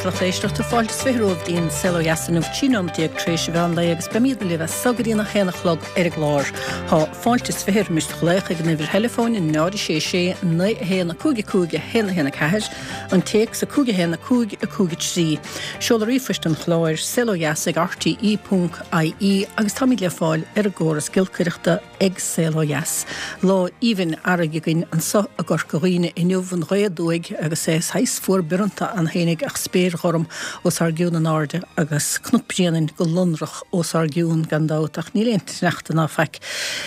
lucht éisteachta, fáilte is 20 romhaibh dtí'n Saol Ó Dheas inniu, 13 nóiméad tar éis an mheán lae agus beimídne libh as so go dtí'n 1 a chlog ar an gclár. Tá fáilte is 20 roimis do ghlaoch ag an uimhir theileafóin 0 6 6 9 1 5 5 1 1 4, an téacs 5 1 5 5 3. Seoladh ríomhphoist an chláir, saolodheas ag rte ponc ie agus táimid le fáil ar an gcóras giolcaireachta. ag Saol Ó Dheas. Lá aoibhinn earraigh againn anso i gCorca Dhuibhne inniu, an ghaoth aduaidh agus é saghas fuar bioranta ann fhéinig ach spéir ghorm os ár gcionn in airde agus Cnoc Bréanainn go lonrach os ár gcionn gan dabht ach níl aon tsneachta ná faic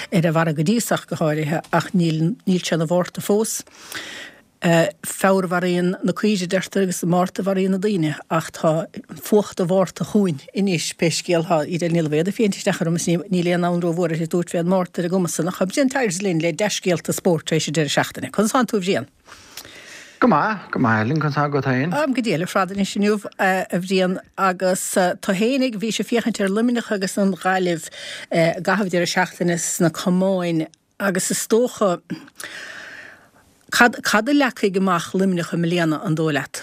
ar an bhfarraige go dtí so ach go háirithe ach níl níl sé ina Mhárta fós. Feabhra a mharaíonn na caoirigh, a deirtear, agus Márta a mharaíonn na daoine, ach tá fuacht an Mhárta chugainn anois, pé scéal atá. Edel Ní Loibhéad ag féachaint isteach orm is níl aon fhonn rómhór uirthi tabhairt fén Márta ar an gcuma san, ach tá Brian Tyers linn le dea-scéalta spóirt tar éis an deireadh seachtaine. Conas tánn tú, a Bhriain? Go maith, go maith, Ellen, conas tá agat féin? Táim go diail ar fad anois inniu, a Bhriain, agus tú fhéinig, bhís ag féachaint ar Luimneach agus an Ghaillimh i gcaitheamh an deireadh seachtaine sna camáin, Agus is dócha, cad, cad a leagfaidh amach Luimneach i mbliana, an dóigh leat?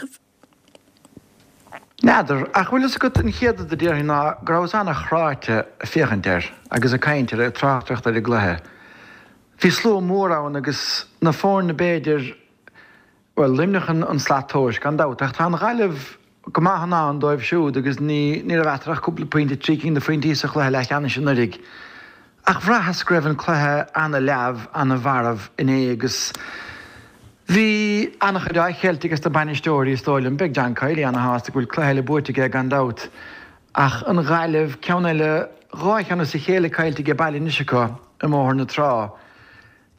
N'fheadar, ach bhfuil fhios agat, an chéad rud a déarfainn ná go rabhas an-chráite ag féachaint air agus ag caint air, ag tráchtaireacht ar an gcluiche. Bhí slua mór ann agus na foirne b'fhéidir, Bhuel, Luimneach an slat tomhais, gan dabht, ach tá an Ghaillimh go maith in ann dóibh siúd agus ní ní raibh eatarthu ach cúpla pointe, 3 cinn de phointí sa chluiche leathcheannais anuraidh. Ach bhraitheas go raibh an cluiche ana-leamh, ana-mharbh inné agus bhí an-chuid á cheilt ages na bainisteoirí, is dóigh liom. Beidh John Kiely ana-shásta go bhfuil cluiche eile buaite aige, gan dabht. Ach an Ghaillimh, ceann eile, dhá cheann as a chéile caillte age baile anois acu i mBóthar na Trá.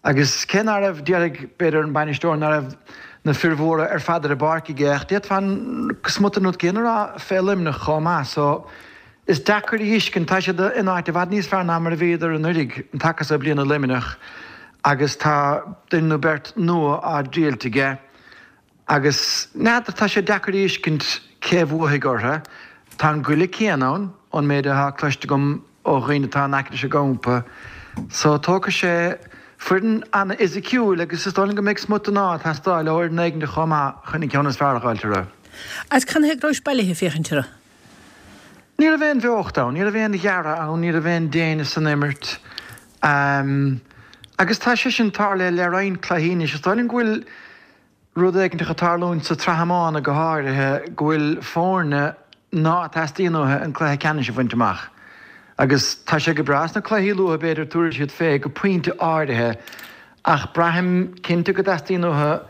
Agus cé ná raibh, déarfaidh, b'fhéidir, an bainisteoir ná raibh na fir mhóra ar fad ar an bpáirc aige, ach d'fhéadfá an smut den rud céanna a rá fé Luimneach chomh maith. So, is deacair a thuiscint, tá siad in áit i bhfad níos fearr ná mar a bhíodar anuiridh, an taca so bliana Luimneach, agus tá duine nó beirt nua á dtriailt aige. Agus n'fheadar, tá sé deacair a thuiscint cé a bhuafaidh orthu. Tá an goile céanna ann, ón méid atá cloiste agam ó dhaoine atá in aice leis an gcampa. So, tógfaidh sé foireann an-fhisiciúil agus is dóigh liom go mbeidh smut den ádh ag teastáil ó fhoireann éigin chomh maith chun an ceann is fearr a dh'fháilt orthu. Agus canathaobh go rabhais bailithe ag féachaint orthu? Ní raibh aon bheocht ann, ní raibh aon ghearradh ann, ní raibh aon déine san imirt. Agus tá sé sin tarlaithe le roinnt cluichí anois. Is dóigh liom go bhfuil rud éiginteach ag tarlúint sa tsraith iomána go háirithe, go bhfuil foirne ná teastaíonn uathu an cluiche ceannais a bhaint amach. Agus tá sé go breá sna cluichí luatha, b'fhéidir, tabharfaidh siad fé go pointe áirithe, ach braithim cinnte go dteastaíonn uathu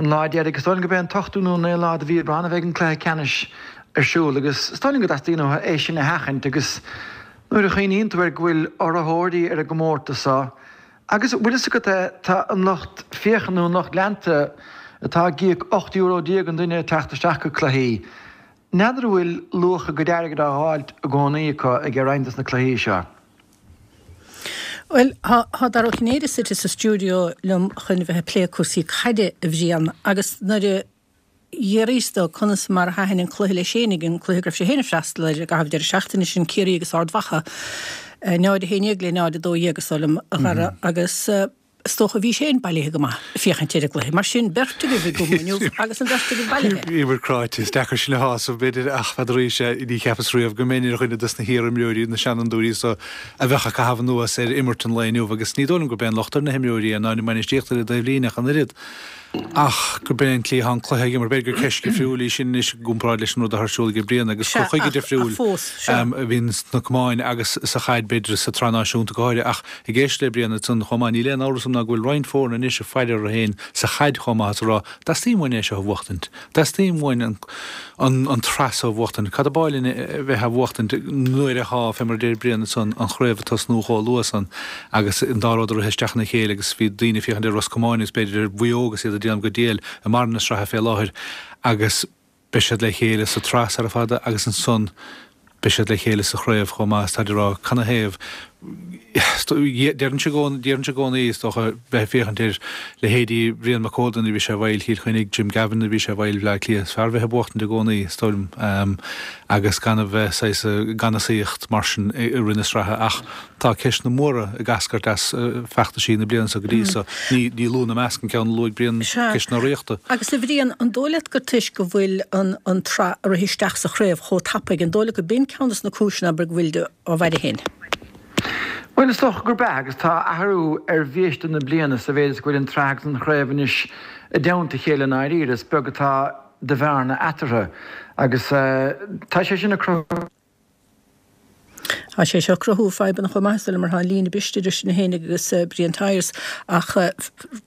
an lá deiridh, is dóigh liom gurb é an t-ochtú nó an naoú lá de mhí Aibreán a bheidh an cluiche ceannais ar siúl agus is dóigh liom go dteastaíonn uathu é sin a sheachaint agus nuair a chuimhníonn tú air go bhfuil urraitheoirí ar an gcomórtas seo agus bhfuil fhios agat é, tá an lucht féachana nó an lucht leanta atá ag íoc €18 euro an duine ag teacht isteach go cluichí, n'fheadar an bhfuil luach a gcuid airgid á dh'fháilt i gcónaí acu ag roinnt des na cluichí seo. Bhuel, tá Dara Ó Cinnéide suite sa stiúideo liom chun a bheith ag plé cúrsaí caide, a Bhriain, agus nuair a d'fhiafraíos de conas mar a thaitin an cluiche leis fhéinig, an cluiche go raibh sé féin ag freastal air i gcaitheamh deireadh seachtaine, sin Ciarraí agus Ard Mhacha, 0-11 le 0-12 is dóigh liom, a Dhara, agus is dócha bhís féin bailithe go maith ag féachaint ar an gcluiche. Mar sin, beirt agaibh i gcumha inniu agus an bheirt agaibh bailithe. Bhíomar cráite. Is deacair sinn a shásamh, b'fhéidir, ach n'fheadar arís, ní cheapas riamh go mbeinn ar dhuine dos na hiar-imreoirí, na seanfhondúirí so, a bheadh ag caitheamh anuas ar imirt an lae inniu agus ní dóigh liom gurb é an locht ar na himreoirí é ná ar an mbainistíocht ar an dtaobhlíne ach an oiread. Ach gurb é an tslí atá an cluiche á imirt, b'fhéidir gur ceist dhifriúil í sin anois i gcomparáid leis an rud atá ar siúl ag Brian agus cur chuige difriúil a bhíonn sna camáin agus sa chaid, b'fhéidir, sa tsraith náisiúnta go háirithe. Ach ag éisteacht le Brian ansan chomh maith, níl aon amhras agam ná go bhfuil roinnt foirne anois ag faire orthu féin sa chaid chomh maith is ag rá, 'Dteastaíonn uainn é seo a bhuachtaint. Dteastaíonn uainn an an tsraith seo a bhuachtaint. Cad ab áil linn a bheith á bhuachtaint nuair atá, fé mar a deir Brian ansan, an chraobh ag tosnú chomh luath san agus an dá rud ag rith isteach ina chéile agus bhí daoine ag féachaint ar Ros Comáin agus b'fhéidir ar Mhaigh Eo agus iad ag déanamh go diail i mbarr na sraithe fé láthair agus beidh siad le chéile sa tsraith sara fada agus ansan beidh siad le chéile sa chraobh chomh maith is táid ag rá canathaobh. Déarfainnse i gcónaí, is dócha, bheith ag féachaint ar leithéidí Bhrian Mac Códa nuair a bhí sé i bhfeighil Chill Chainnigh, Jim Gavin nuair a bhí sé i bhfeighil Bhaile Átha Cliath, is fearr bheith ag buachtaint i gcónaí, is dóigh liom, agus gan a bheith saghas ag ganasaíocht mar sin i rith na sraithe. Ach tá ceisteanna móra ag eascairt as feachtaisí na bliana seo go dtí so. Ní lú ina measc an ceann a luaigh Brian, ceist na urraíochta. Agus a Bhriain, an dóigh leat gur toisc go bhfuil an tsraith ag rith isteach sa chraobh chomh tapaidh, an dóigh leat go b'in ceann des na cúiseanna, abair, go bhfuil á bhfaire féin. Bhuel, is dócha gurb ea, agus tá athrú ar bhiaiste na bliana sa mhéid is go bhfuil an tsraith agus an chraobh anois i dteannta a chéile i ndáiríre. Is beag atá de bhearna eatarthu agus tá sé sin ag cruthú. Tá sé seo ag cruthú fadhbanna chomh maith, is dóigh liom, mar tá an líne briste idir sinn féin agus Brian Tyers. Ach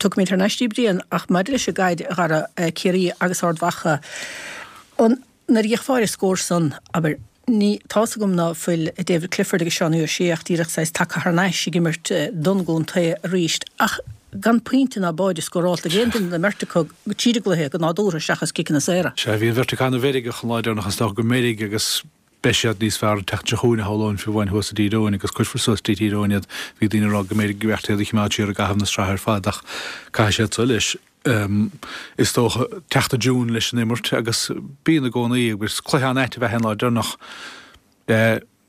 tiocfaimid thar n-ais duit, Brian, ach maidir leis an gcaid, a Dhara, Ciarraí agus Ard Mhacha, an. Nuair a d'fhéachfá ar an scór san, abair, ní, tá's agam ná fuil David Clifford agus Seánie O'Shea ach díreach saghas tagtha thar n-ais ag imirt don gcontae arís, ach gan pointe ná báide scórálta ag aon duine den mbeirt acu tríd an gcluiche go nádúrtha seachas ciceanna saora. Sea, bhí an bheirt acu ana-mheirgeach an lá deireanach is dócha go meirg agus beidh siad níos fearr an tseachtain seo chugainn a shamhlóinn fiú amháin thuas i dTír Eoghain agus cuirfear suas dtí Tír Eoghain iad. Bhí daoine ag rá go mb'fhéidir go mbeadh iad a choimeád siar i gcaitheamh na sraithe ar fad ach caithfidh siad so leis. is dócha, teacht i dtiúin leis an imirt agus bíonn i gcónaí agus cluiche an-ait ab ea é an lá deireanach.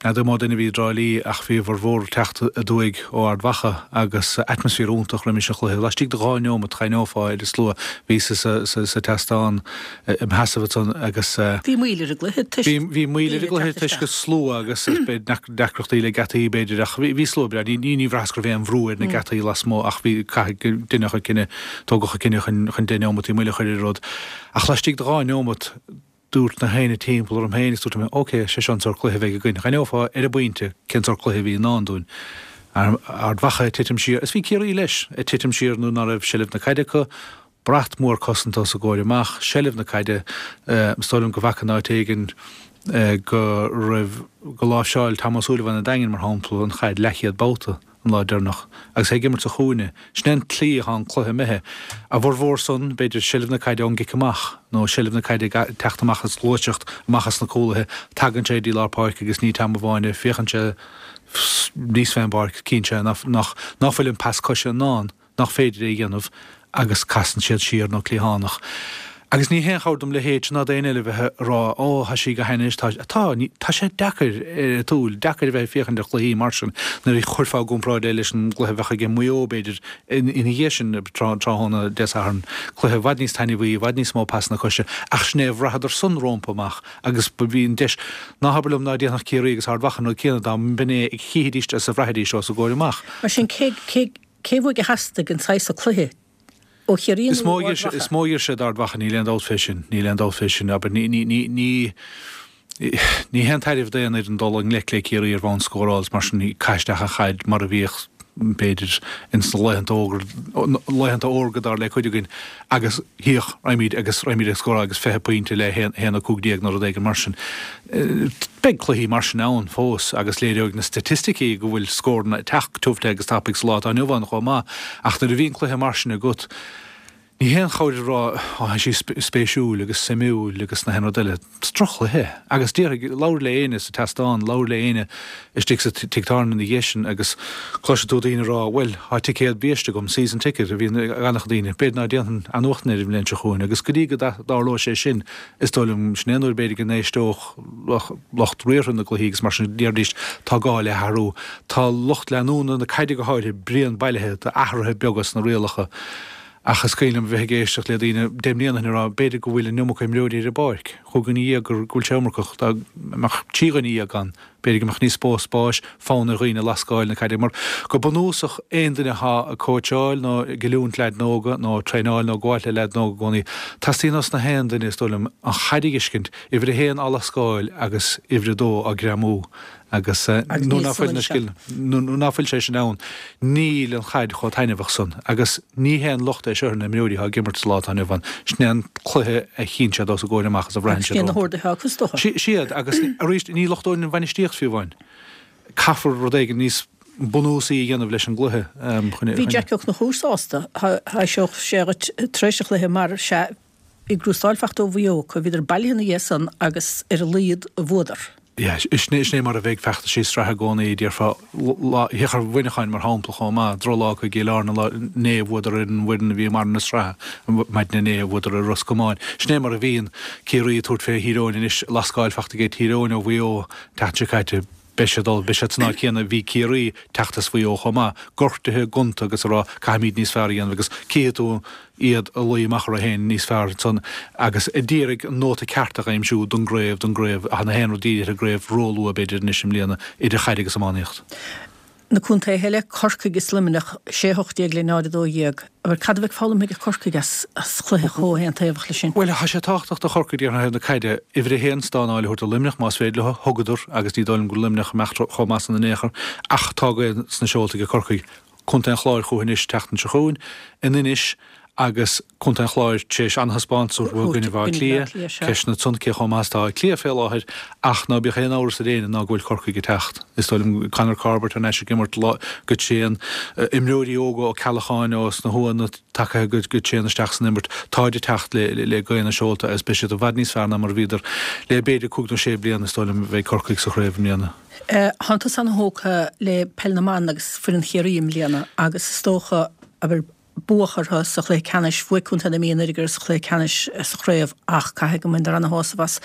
N'fheadar an mó duine a bhí i dTrá Lí ach bhí a bhformhór ag teacht aduaidh ó Ard Mhacha agus atmaisféar iontach roimis an chluiche. Laistigh de dhá neomat d'aithneofá ar an slua a bhí sa seastán im sheasamh ansan agus. Bhí moill ar an gcluiche toisc. Bhí moill ar an gcluiche toisc an slua agus deacrachtaí le geataí b'fhéidir ach bhí slua breá. Ní bhraitheas go raibh aon bhrú ar na geataí lasmuigh ach bhí caithfidh deineadh an cinneadh, tógadh an cinneadh chun 10 neomataí moille a chur ar an rud. Ach laistigh de dhá neomat dúirt na héinne timpeall orm féin agus dúirt mé ok, sé seo an sórt cluiche a bheidh againn. D'aithneofá ar an bpointe cén sórt cluiche a bhí i ndán dúinn. Ard Mhacha ag titim siar, is bhí Ciarraí leis, ag titim siar nuair ná raibh seilbh na caide acu, Brat mór cosanta os a gcomhair amach, seilbh na caide, is dóigh liom go bhfaca in áit éigin go raibh, go láimhseáil Tom Ó Súilleabháin an Daingin, mar shampla, an chaid leathchéad babhta an lá deireanach agus é ag imirt sa chúinne. Sin é an tslí atá an cluiche imithe. A bhformhór san, b'fhéidir, seilbh na caide ón gcic amach nó seilbh na caide ag teacht amach as gluaiseacht, amach as na cúlaithe, tagann sé dtí lár páirce agus ní Tom amháin é, féachann sé níos fén bpáirc, cíonn sé nach bhfuil an pas coise i ndán. nach féidir é a dhéanamh agus casann siad siar nó cliathánach. Agus ní haon chabhair dom leithéidse ná d'aon eile bheith ag rá ó tá sí go hainnis, tá, tá, ní, tá sé deacair ar an tsúil, deacair a bheith ag féachaint ar chluichí mar sin nuair a chuirfeá i gcomparáid é leis an gcluiche a bheadh aige Maigh Eo b'fhéidir ina dhiaidh sin tráthnóna Dé Sathairn, cluiche i bhfad níos taitneamhaí, i bhfad níos mó pasanna coise ach sin é a bhraitheadar san rómpa amach agus bhí an deis, ná habair liom ná déanfadh Ciarraí agus Ard Mhacha an rud céanna dá mb'in é a chífidís is a bhraithfidís os a gcomhair amach. Mar sin cé, cé, Cé uaidh a theastaigh an saghas so cluiche? Ó Chiarraí nó ó Ard Mhacha? Is mó a d'iarr sé d'Ard Mhacha, níl aon dabht fé sin. Níl aon dabht fé sin. Abair, ní, ní, ní, ní, ní haon tairbhe d'aon fhoireann dul i ngleic le Ciarraí ar bhonn scóráil is mar sin, caith isteach an chaid mar a bhíodh, b'fhéidir, ins na laethanta ógra, laethanta órga dar le cuid againn agus thíodh, raghaimid agus raghaimid ag scóráil agus 20 pointe le 1-15 nó rud éigin mar sin. Beidh cluichí mar sin ann fós agus léireoidh na staitisticí go bhfuil scóranna ag teacht tiubh te agus tapaidh sa lá atá inniu ann chomh maith ach nuair a bhíonn cluiche mar sin agat ní haon chabhair a rá 'á tá sí spéisiúil agus suimiúil agus na haon rud eile'. Is droch-chluiche é agus déarfaidh, labhair le éinne sa tseastán, labhair le éinne istigh sa tigh tábhairne ina dhiaidh sin agus cloisfidh tú daoine ag rá 'bhuel, tá ticéad biaiste agam, season ticket a bhíonn ag an-chuid daoine, b'fhéidir ná déanfainn athnuachtain air an bhliain seo chugainn' agus go dtí go dtarlóidh sé sin Is dóigh liom, sin é an uair b'fhéidir go n-éisteodh lucht riartha na gcluichí agus mar sin déarfaidís tá gá le hathrú. Tá lucht leanúna na caide go háirithe bréan bailithe d'athruithe beaga sna rialacha ach is cuimhin liom a bheith ag éisteacht le daoine deich mbliana ó shin ag rá b'fhéidir go bhfuil an iomarca imreoirí ar an bpáirc, chúig dhuine dhéag go bhfuil sé iomarcach, dá mbeadh trí dhuine dhéag ann. B'fhéidir go mbeadh níos mó spáis, fonn ar dhaoine lascáil na caide mar, go bunúsach, aon duine atá ag cóitseáil nó ag oiliúint leaideanna óga nó ag traenáil nó ag gabháilt le leaideanna óga i gcónaí, teastaíonn ós na haon duine, is dóigh liom, an chaid a fheiscint, uimhir a haon á lascáil agus uimhir a dó á greamú agus nuair ná fuil na scileanna, nuair ná fuil sé sin ann, níl an chaid chomh taitneamhach san agus ní haon locht é seo ar na himreoirí atá ag imirt sa lá atá inniu ann. Sin é an cluiche a chíonn siad os a gcomhair amach is a bhraitheann siad rompu. Agus sin na horduithe acu, is dócha. Siad, agus arís, ní lochtóinn an bhainistíocht fiú amháin. Caithfear rud éigin níos bunúsaí a dhéanamh leis an gcluiche chun. Bhí Jackie Ó Conchúir sásta, thaibhseodh sé dhuit tar éis an chluiche mar, sea, bhí gnústáil fachta ó Mhaigh Eo acu, bhíodar bailithe ina dhiaidh san agus ar a laghad bhuadar. Yeah, sin é mar a bheidh feachtaisí sraithe i gcónaí, déarfá, féach ar Mhuineacháin mar shampla chomh maith, drochlá acu i gCill Airne inné, bhuadar ar an bhfoireann a bhí i mbarr na sraithe maidin inné, bhuadar ar Ros Comáin. Sin é mar a bhíonn Ciarraí ag tabhairt fé Thír Eoghain anois, lascáil fachta aige Tír Eoghain ó Mhaigh Eo an tseachtain seo caite. Beidh siad ullamh, beidh siad san áit chéanna a bhí Ciarraí teacht as Mhaigh Eo chomh maith, gortaithe, gonta agus ag rá caithfimid níos fearr a dhéanamh agus cífidh tú iad ag luí amach orthu féin níos fearr ansan agus a d'iarraidh an nóta ceart a aimsiú don gcraobh, don gcraobh, ach na haon rud dírithe ar an gcraobh róluath b'fhéidir anois i mbliana idir chaid agus iománaíocht. Na contaetha eile, Corcaigh is Luimneach, 6 18 le 0 12. Abair, cad a bheidh foghlamtha ag Corcaigh as chluiche chomh haontaobhach leis sin? Bhuel, tá sé tábhachtach do Chorcaigh déarfainn ó thaobh na caide, uimhir a haon, stánáil a thabhairt do Luimneach más féidir leo. Thugadar, agus ní dóigh liom go bhfuil Luimneach imeacht chomh maith san in aon chor, ach tá gaoth sna seolta ag Corcaigh. Contae an Chláir chucu anois an tseachtain seo chugainn, in Inis, agus Contae an Chláir tar éis an-thaispeántas a thabhairt i gcoinne Bhaile Átha Cliath, ceisteanna ansan cé chomh maith is atá Áth Cliath fé láthair, ach ná bíodh aon amhras ar éinne ná go bhfuil Corcaigh ag teacht. Is dóigh liom Conor Corbett thar n-ais ag imirt go tréan, imreoirí óga Ó Ceallacháin ó sna hUathanna tagtha go tréan isteach san imirt, táid ag teacht le gaoth na seolta agus beidh siad i bhfad níos fearr ná mar a bhíodar le b'fhéidir cúig nó sé bliana, is dóigh liom, a bheidh Corcaigh sa chraobh i mbliana. Tánn tusa ana-thógtha le Peil na mBan agus foireann Chiarraí i mbliana agus is dócha, abair, buadh orthu sa chluiche ceannais. Bhuaigh Contae na Mí anuraidh orthu sa chluiche ceannais sa chraobh ach caithfidh go mbaineadar ana-shásamh as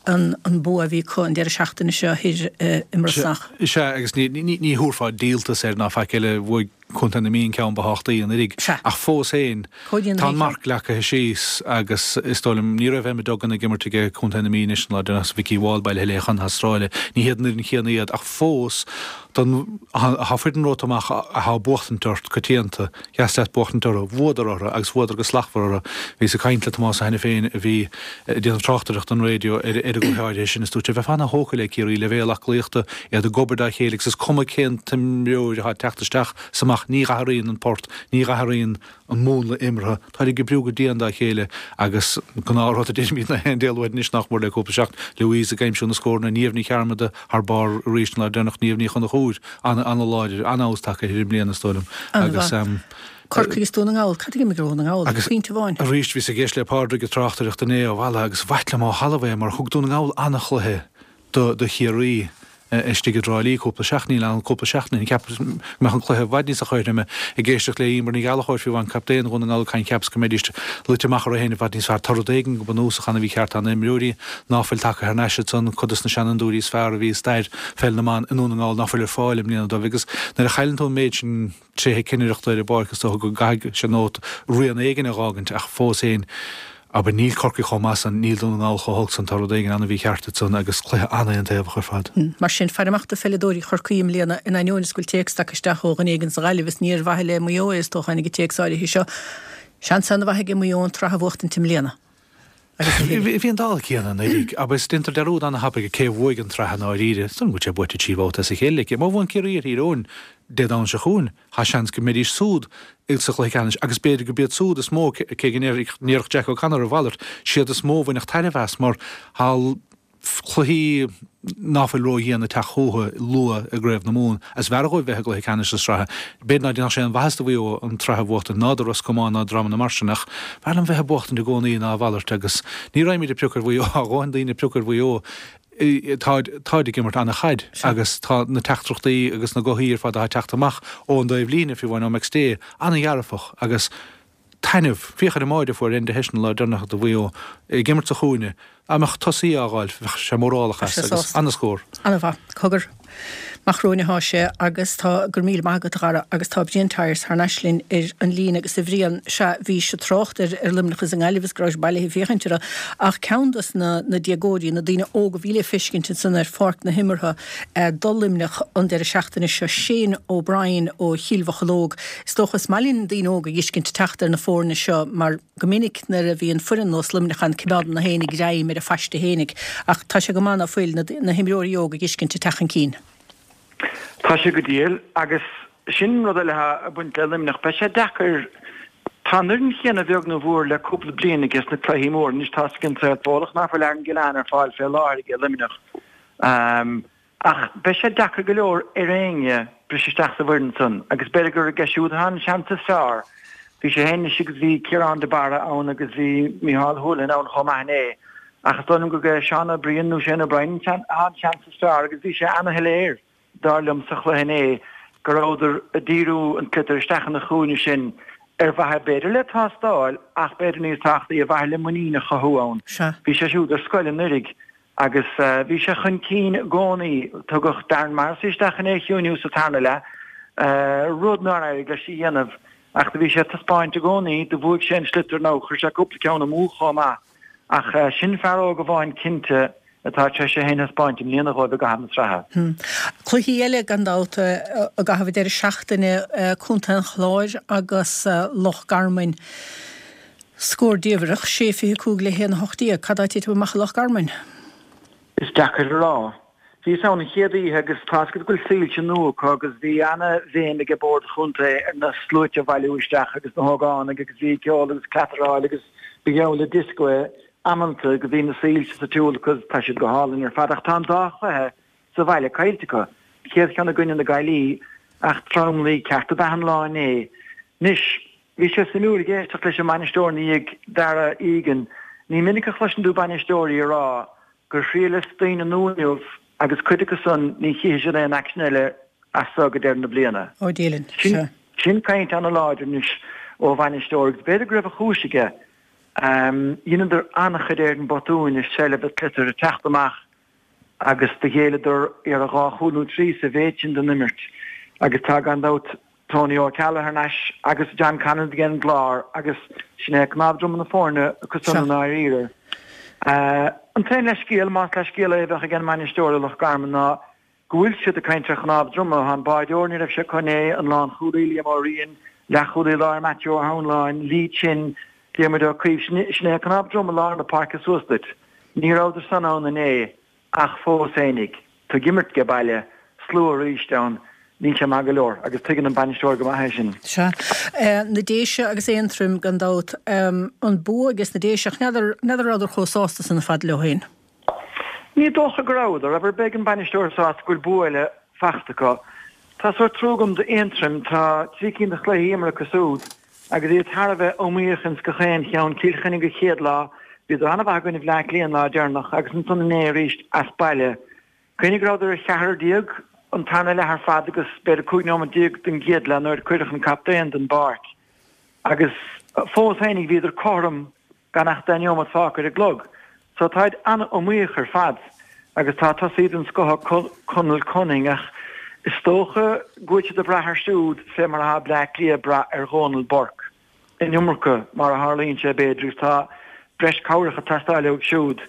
an bua a bhí acu an deireadh seachtaine seo thoir i mBrosnach. Sea, agus ní thabharfá díoltas air ná faic eile, bhuaigh Contae na Mí an ceann ba thábhachtaí anuraidh. Ach fós féin, tá an marc leagtha síos agus is dóigh liom, ní raibh Emma Duggan ag imirt aige Contae na Mí anois an lá deireanach, Vikki Wall bailithe léi chun na hAstráile. Ní hiad an fhoireann chéanna iad ach fós, Don, thá foireann romhat amach athá ag buachtaint ort coitianta, dheas leat buachtaint orthu. Bhuadar orthu agus bhuadar go slachtmhar orthu. Bhíos ag caint le Tomás Ó hAiniféin a bhí ag déanamh tráchtaireacht don raidió ar an gcluiche áirithe sin is dúirt sé, bheifeá ana-thógtha le Ciarraí, leibhéal aclaíochta, iad ag obair dá chéile agus is cuma cén t-imreoir athá ag teacht isteach 's amach, ní dh'athraíonn an port, ní dh'athraíonn an múnla imeartha. Táid ag oibriú go dian dá chéile agus gnáthrud a deirimid na haon Dé Luain anois nach mór le cúpla seachtain, Louise ag aimsiú na scóranna, Niamh Ní Chearmada thar barr arís an lá deireanach, Niamh Ní Chonchúir an-láidir, an-fheabhas tagtha uirthi i mbliana is dóigh liom agus. Corcaigh is Dún na nGall, cad a d'imigh ar Dhún na nGall? Agus Pointe amháin. arís bhíos ag éisteacht le Pádraig ag tráchtaireacht inné ó Mhala agus b'ait liom ó thalamh é mar thug Dún na nGall an-chluiche do Chiarraí istigh i dTrá Lí cúpla seachtain, níl ann cúpla seachtain, cheapas go mbeadh an cluiche i bhfad níos cothroime. Ag éisteacht le Emer Ní Ghallchóir fiú amháin, captaen Dhún na nGall ag caint cheapas go mbeidís luite amach orthu féin i bhfad níos fearr. Tá rud éigin go bunúsach ana-mhícheart, tá na himreoirí ná fuil tagtha thar n-ais ansan, cuid dos na seanfhondúirí is fearr a bhí i stair pheil na mban i nDún na Ngall ná fuil ar fáil i mbliana dóibh agus nuair a chailleann tú an méid sin tréithe cinnireachta ar an bpáirc is dócha go gcaithfidh sé nóta rian éigin a dh'fhágaint ach fós féin, abair, níl Corcaigh chomh maith san, níl Dún na nGall chomh holc san, tá rud éigin ana-mhícheart ansan agus cluiche an-aontaobhach ar fad. Mar sin, faire amach do pheileadóirí Chorcaí i mbliana, in ainneoin is go bhfuil téacs tagtha isteach ó dhuine éigin sa Ghaillimh is ní ar mhaithe le Maigh Eo é is dócha a tháinig an téacs áirithe seo. Seans ana-mhaith aige Maigh Eo an tsraith a bhuachtaint i mbliana. Agus a thuilleadh. Bhí an dála céanna anuraidh, agus déantar dearúd ana-thapaidh cé a bhuaigh an tsraith i ndáiríre. Is dóigh liom go bhfuil sé buaite 3 bhabhta as a chéile aici. Má bhuann Ciarraí ar Thír Eoghain Dé Domhnaigh seo chugainn, tá seans go mbeidís súd sa chluiche ceannais agus b'fhéidir go b'iad súd is mó, cé go ndéarfadh Jack O'Connor a mhalairt, siad is mó a bhainfeadh tairbhe as mar tá cluichí ná fuil ró-dhian ag teacht chucu luath i gCraobh na Mumhan agus b'fhearr dhóibh bheith i gcluiche ceannais na sraithe. B'fhéidir ná déanfadh sé aon mhaitheas do Mhaigh Eo an tsraith a bhuachtaint, ná do Ros Comáin ná dreamanna mar sin ach b'fhearr liom bheith ag buachtaint i gcónaí ná a mhalairt agus ní raghaimid ag piocadh ar Mhaigh Eo, tá a dhóthain daoine ag piocadh ar Mhaigh Eo. Táid, táid ag imirt ana-chaid agus tá na teachtaireachtaí agus na gothaí ar fad atá ag teacht amach ón dtaobh líne, fiú amháin ó McStay, ana-dhearfach agus taitneamh. Féach ar an mbáide a fuair Enda Hession an lá deireanach do Mhaigh Eo ag imirt sa chúinne. Dá mbeadh tosaí á fháil, bheadh sé mórálach as agus ana-scór. Ana-mhaith. Cogar. Amach romhainn atá sé agus tá, go raibh míle maith agat a Dhara, agus tá Brian Tyers thar n-ais linn ar an líne agus a Bhriain, sea, bhís ag trácht ar ar Luimneach is an nGaillimh is go rabhais bailithe ag féachaint orthu ach ceann dos na na déagóirí, na daoine óga a bhí le feiscint ansan ar pháirc na himeartha do Luimneach an deireadh seachtaine seo, Shane O'Brien ó Chill Mhocheallóg. Is dócha is maith linn daoine óga a dh'fheiscint ag teacht ar na foirne seo mar go minic nuair a bhíonn foireann nós Luimneach ann coimeádann na héinne greim ar a phaiste fhéinig ach tá sé go maith ná fuil na na himreoirí óga a dh'fheiscint ag teacht chun cinn. Tá sé go diail agus sin rud eile atá ag baint le Luimneach. Beidh sé deacair, tá an fhoireann chéanna bheag nó mhór le cúpla bliain aige sna cluichí móra. Anois tá a fhios ag an saol Fódhlach ná fuil Aaron Gillane ar fáil fé láthair aige Luimneach. Ach beidh sé deacair go leor ar éinne briseadh isteach sa bhfoireann san agus b'fhéidir gur aige siúd atá an seans is fearr. Bhí sé féin anois agus bhí Ciarán de Barra ann agus bhí Micheál Houlihan ann chomh maith inné. Ach is dóigh liom gurb é Seán Ó Briain nó Shane O'Brien atá an seans is fearr agus bhí sé ana-shoiléir, dar liom, sa chluiche inné go rabhadar ag díriú an tsliotair isteach ina chúinne sin ar mhaithe b'fhéidir le tástáil ach b'fhéidir níos tábhachtaí ar mhaithe le muinín a chothú ann. Bhí sé siúd ar scoil anuiridh agus bhí sé chun cinn i gcónaí. Tugadh Darren Morrissey isteach chun é a chiúiniú sa tarna leath, rud nár éirigh leis a dhéanamh ach do bhí sé ag taispeáint i gcónaí, do bhuaigh sé an sliotar nó chuir sé cúpla ceann amú chomh maith. Ach sin fear óg amháin cinnte atá tar éis é féin a thaispeáint i mbliana dhóibh i gcaitheamh na sraithe. Cluichí eile gan dabht i gcaitheamh an deireadh seachtaine, Contae an Chláir agus Loch Garman. Scór diamhrach, 6-25 le 1-18. Cad tá ag titim amach i Loch Garman? Is deacair a rá. Bhíos ann an chéad oíche agus tá 'fhios agat go bhfuil soilse nua acu agus bhí ana-bhéim ag bord an chontae ar na sluaite a bhailiú isteach agus na hógánaigh agus bhí ceol agus cleataráil agus ba gheall le dioscó é amanta go bhí na soilse sa tsiúl acu tá siad go hálainn ar fad ach tá an dá chluiche sa bhaile caillte acu. An chéad cheann i gcoinne na Gaillimhe ach tromluí ceart ab ea an lá inné. Anois, bhí sé suimiúil ag éisteacht leis an mbainisteoir ina dhiaidh, Darragh Egan. Ní minic a chloiseann tú bainisteoirí ag rá gur thriaileas daoine nua inniu agus cuid acu san ní chífidh siad aon aicsean eile as so go deireadh na bliana. Ó Dillon, sea. Sin caint ana-láidir anois ó bhainisteoir agus b'fhéidir go raibh a chúis aige. Dheineadar an-chuid éireann botúin i seilbh an tsliotair ag teacht amach agus do ghéilleadar iarraidh dhá chúl nó trí sa mhéid sin den imirt agus tá gan dabht Tony Ó Ceallaigh thar n-ais agus John Conlon ag an gClár agus sin é cnámh droma na foirne acu san i ndáiríre. An t-aon leithscéal, más leithscéal é a bheadh ag an mbainisteoir i Loch Garman ná go bhfuil siad ag caint ar chnámh droma. Tá an báideoir, ní raibh sé acu inné, an lánchúlaí Liam Ó Riain, leathchúlaí láir Matthew Ó hAnláin, Lee Chin, Diarmuid Ó Caoimh, sin é cnámh droma lár na páirce suas duit. Ní rabhadar san ann inné. Ach fós fhéinig, tú ag imirt age baile, slua arís ann, níl sé maith go leor agus tuigeann an bainisteoir go maith é sin. Sea. Na Déise agus Aontroim, gan dabht. An bua ages na Déise, ach n'fheadar, n'fheadar rabhadar chomh sásta san ar fad leo féin. Ní dócha go rabhadar, abair, beidh an bainisteoir sásta go bhfuil bua eile fachta acu. Tá sórt trua agam d'Aontroim, tá trí cinn de chluichí imeartha acu siúd. Agus iad thar a bheith iomaíoch ins gach aon cheann, Cill Chainnigh an chéad lá, bhíodar an-mhaith i gcoinne Bhleá Cliath an lá deireanach agus ansan inné arís as baile. Cuimhnigh go rabhadar ar cheathrar déag an tarna leath ar fad agus b'fhéidir 15 nóiméad den gcéad leath nuair a cuireadh an captaen den bpáirc. Agus fós fhéinig bhíodar cothrom gan ach 10 neomat fágtha ar an gclog. So táid an-iomaíoch ar fad agus tá tosaí den scoth acu, Conal Cunning, ach is dócha go bhfuil siad ag brath air siúd fé mar atá Bleá Cliath ag brath ar Dhónal Burke an iomarca mar a tharlaíonn sé b'fhéidir agus tá breis cabhrach ag teastáil uaidh siúd.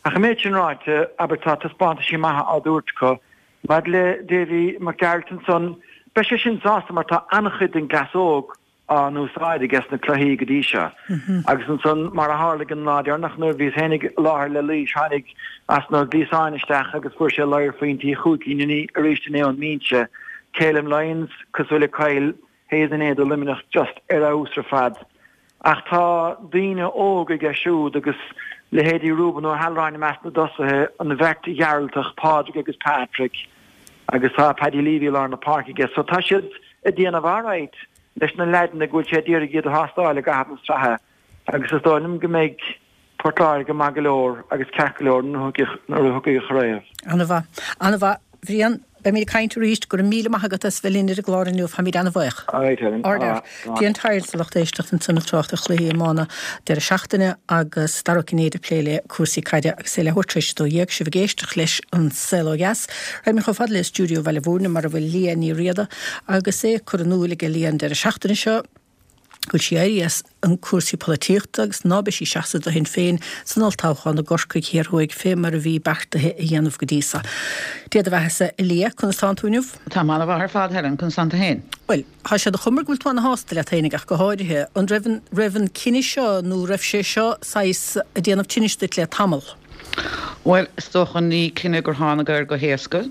Ach an méid sin ráite, abair tá taispeántaisí maithe á dtabhairt acu. Maidir le Davy Mac Gearailt ansan, beidh sé sin sásta mar tá an-chuid den gcleas óg á n-úsáid aige sna cluichí go dtí seo. Agus ansan, mar a tharlaigh an lá deireanach nuair a bhíos féinig i láthair le Laois, tháinig Austin Ó Gliasáin isteach agus fuair sé ladhar phointí chúig cinn arís inné ón mbinse. Calum Lyons, cosúil le Kyle Hayes inné do Luimneach, just ar fheabhas ar fad. Ach tá daoine óga aige siúd agus leithéidí Reuben Ó hAlráin i measc na dtosaithe, an bheirt Ghearaltach, Pádraig agus Patrick, agus tá Paddy Leavey i lár na páirce aige. So tá siad ag déanamh alright leis na leaideanna go bhfuil sé d'iarraidh iad a thástáil i gcaitheamh na sraithe agus is dóigh liom go mbeidh Port Láirge maith go leor agus ceart go leor nuair a thiocfaidh an chraobh. Ana-mhaith. Ana-mhaith. Bhriain, beimid ag caint arís. Go raibh míle maith agat as bheith linn ar an gclár inniu. Táimid ana-bhuíoch. Alright Helen. Ard fhear. Brian Tyers, a lucht éisteachta ansan ag trácht ar chluichí iomána deireadh seachtaine agus Dara Ó Cinnéide ag plé le cúrsaí caide agus é leathuair tar éis a 12, sibh ag éisteacht leis An Saol Ó Dheas. Raghaimid chomh fada le stiúideo Bhaile Bhúirne mar a bhfuil Liadh Ní Riada agus é curtha in iúl ag Liadh an deireadh seachtaine seo go bhfuil sí éirithe as an cúrsaí polaitíochta agus ná beidh sí ag seasamh do Shinn Féin san olltoghchán i gCorcaigh Thiar Thuaidh fé mar a bhí beartaithe a dhéanamh go dtí so. Dia do bheathasa a Liadh, conas tánn tú inniu? Táim an-mhaith ar fad Helen, conas tánn tú féin? Bhuel, tá sé de chuma go bhfuil tú ana-shásta leat féinig ach go háirithe. An raibh an, raibh an cinneadh seo nó raibh sé seo saghas ag déanamh tinnis duit le tamall? Bhuel, is dócha ní cinneadh gur tháinig air go héasca.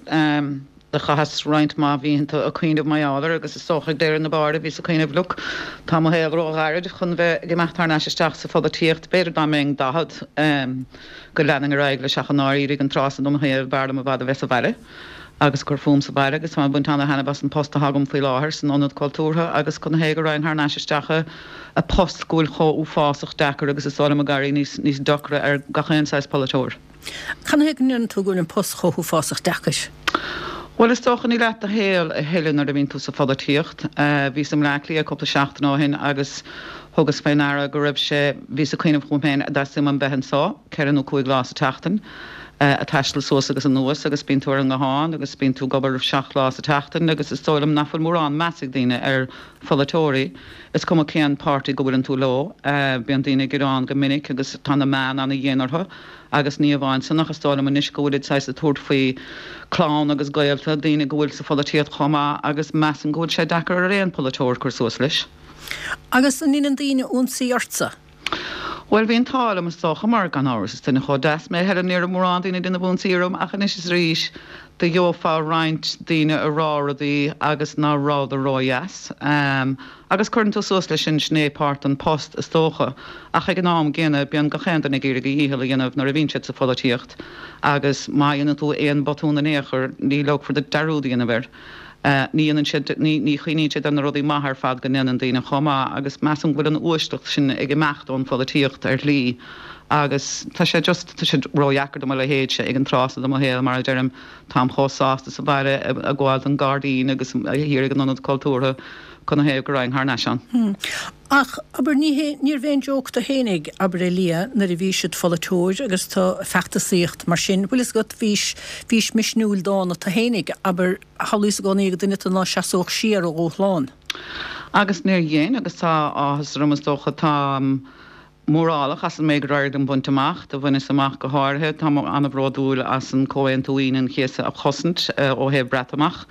Do chaitheas roinnt mhaith mhítheanta ag cuimhneamh mar gheall air agus is dócha ag deireadh na báire bhíos ag cuimhneamh look, tá mo shaol ró-ghairid chun bheith ag imeacht thar n-ais isteach sa pholaitíocht, b'fhéidir dá mbeinn 40 go leanfainn ar aghaidh leis ach i ndáiríre ag an tráth san de mo shaol b'fhearr liom i bhfad a bheith sa bhaile. agus ag cur fúm sa bhaile agus táim ag baint ana-thaitneamh as an post atá agam faoi láthair san Ionad Cultúrtha agus canathaobh go raghainn thar n-ais isteach i post go bhfuil chomh uafásach deacair agus is dóigh liom ag éirí níos níos deacra ar gach aon saghas polaiteoir. Canathaobh go ndeireann tú go bhfuil an post chomh huafásach deacair? Bhuel, is dócha, ní leat do shaol a thuilleadh nuair a bhíonn tú sa pholaitíocht. Bhíos i mBleá Cliath cúpla seachtain ó shin agus thugas fé ndeara go raibh sé, bhíos ag cuimhneamh chugam féin, an dteastaíonn uaim bheith anso ceithre nó cúig lá sa tseachtain, a' taisteal suas agus anuas agus bíonn tú ar an nguthán agus bíonn tú ag obair seacht lá sa tseachtain agus is dóigh liom nach bhfuil mórán meas ag daoine ar pholaiteoirí. Is cuma cén páirtí go bhfuileann tú leo, bíonn daoine ag gearán go minic agus tá na meáin ana-dhian orthu. Agus ní amháin san ach is dóigh liom anois go bhfuilid saghas ag tabhairt faoi clann agus gaolta, daoine go bhfuil sa pholaitíocht chomh maith agus measaim go bhfuil sé deacair ar aon pholaiteoir cur suas leis. Agus an ndeineann daoine ionsaí ortsa? Bhuel, bhí an t-ádh liom is dócha mar, gan amhras, is duine chomh deas mé, a Helen, ní raibh mórán daoine ag déanamh ionsaí orm ach anois is arís do gheofá roinnt daoine ag rá rudaí agus ná rabhadar ródheas. Agus cuireann tú suas leis sin, sin é páirt den post, is dócha. Ach ag an am gcéanna, bíonn gach aon duine ag iarraidh a dhícheall a dhéanamh nuair a bhíonn siad sa pholaitíocht agus má dhéanann tú aon bhotún in aon chor, ní leogfar duit dearúd a dhéanamh air. Ní dhéanann siad, ní, ní chuimhníonn siad ar na rudaí maithe ar fad go ndéanann daoine chomh maith agus measaim go bhfuil an uaisleacht sin ag imeacht ón pholaitíocht ar shlí agus tá sé just, tá sé ródheacair do mo leithéidse ag an tráth so de mo shaol, mar a deirim, táim chomh sásta sa bhaile ag gabháil don gairdín agus thiar ag an Ionad Cultúrtha. Canathaobh go raghainn thar n-ais ann. Ach, abair, ní hé, níorbh aon joke do fhéinig, abair, a Liadh, nuair a bhís id pholaiteoir agus tú ag feachtasaíocht mar sin, bhfuil fhios agat, bhís, bhís misniúil dána tu fhéinig, abair, shamhlaíos i gcónaí gur duine tu ná seasódh siar ó dhúshlán. Agus níor dhein, agus tá áthas orm, is dócha, táim mórálach as an méid gur éirigh liom baint amach. Do bhaineas amach go háirithe, táim an-bhródúil as an Comhaontú Aoine an Chéasta a chosaint ó thaobh Breatimeacht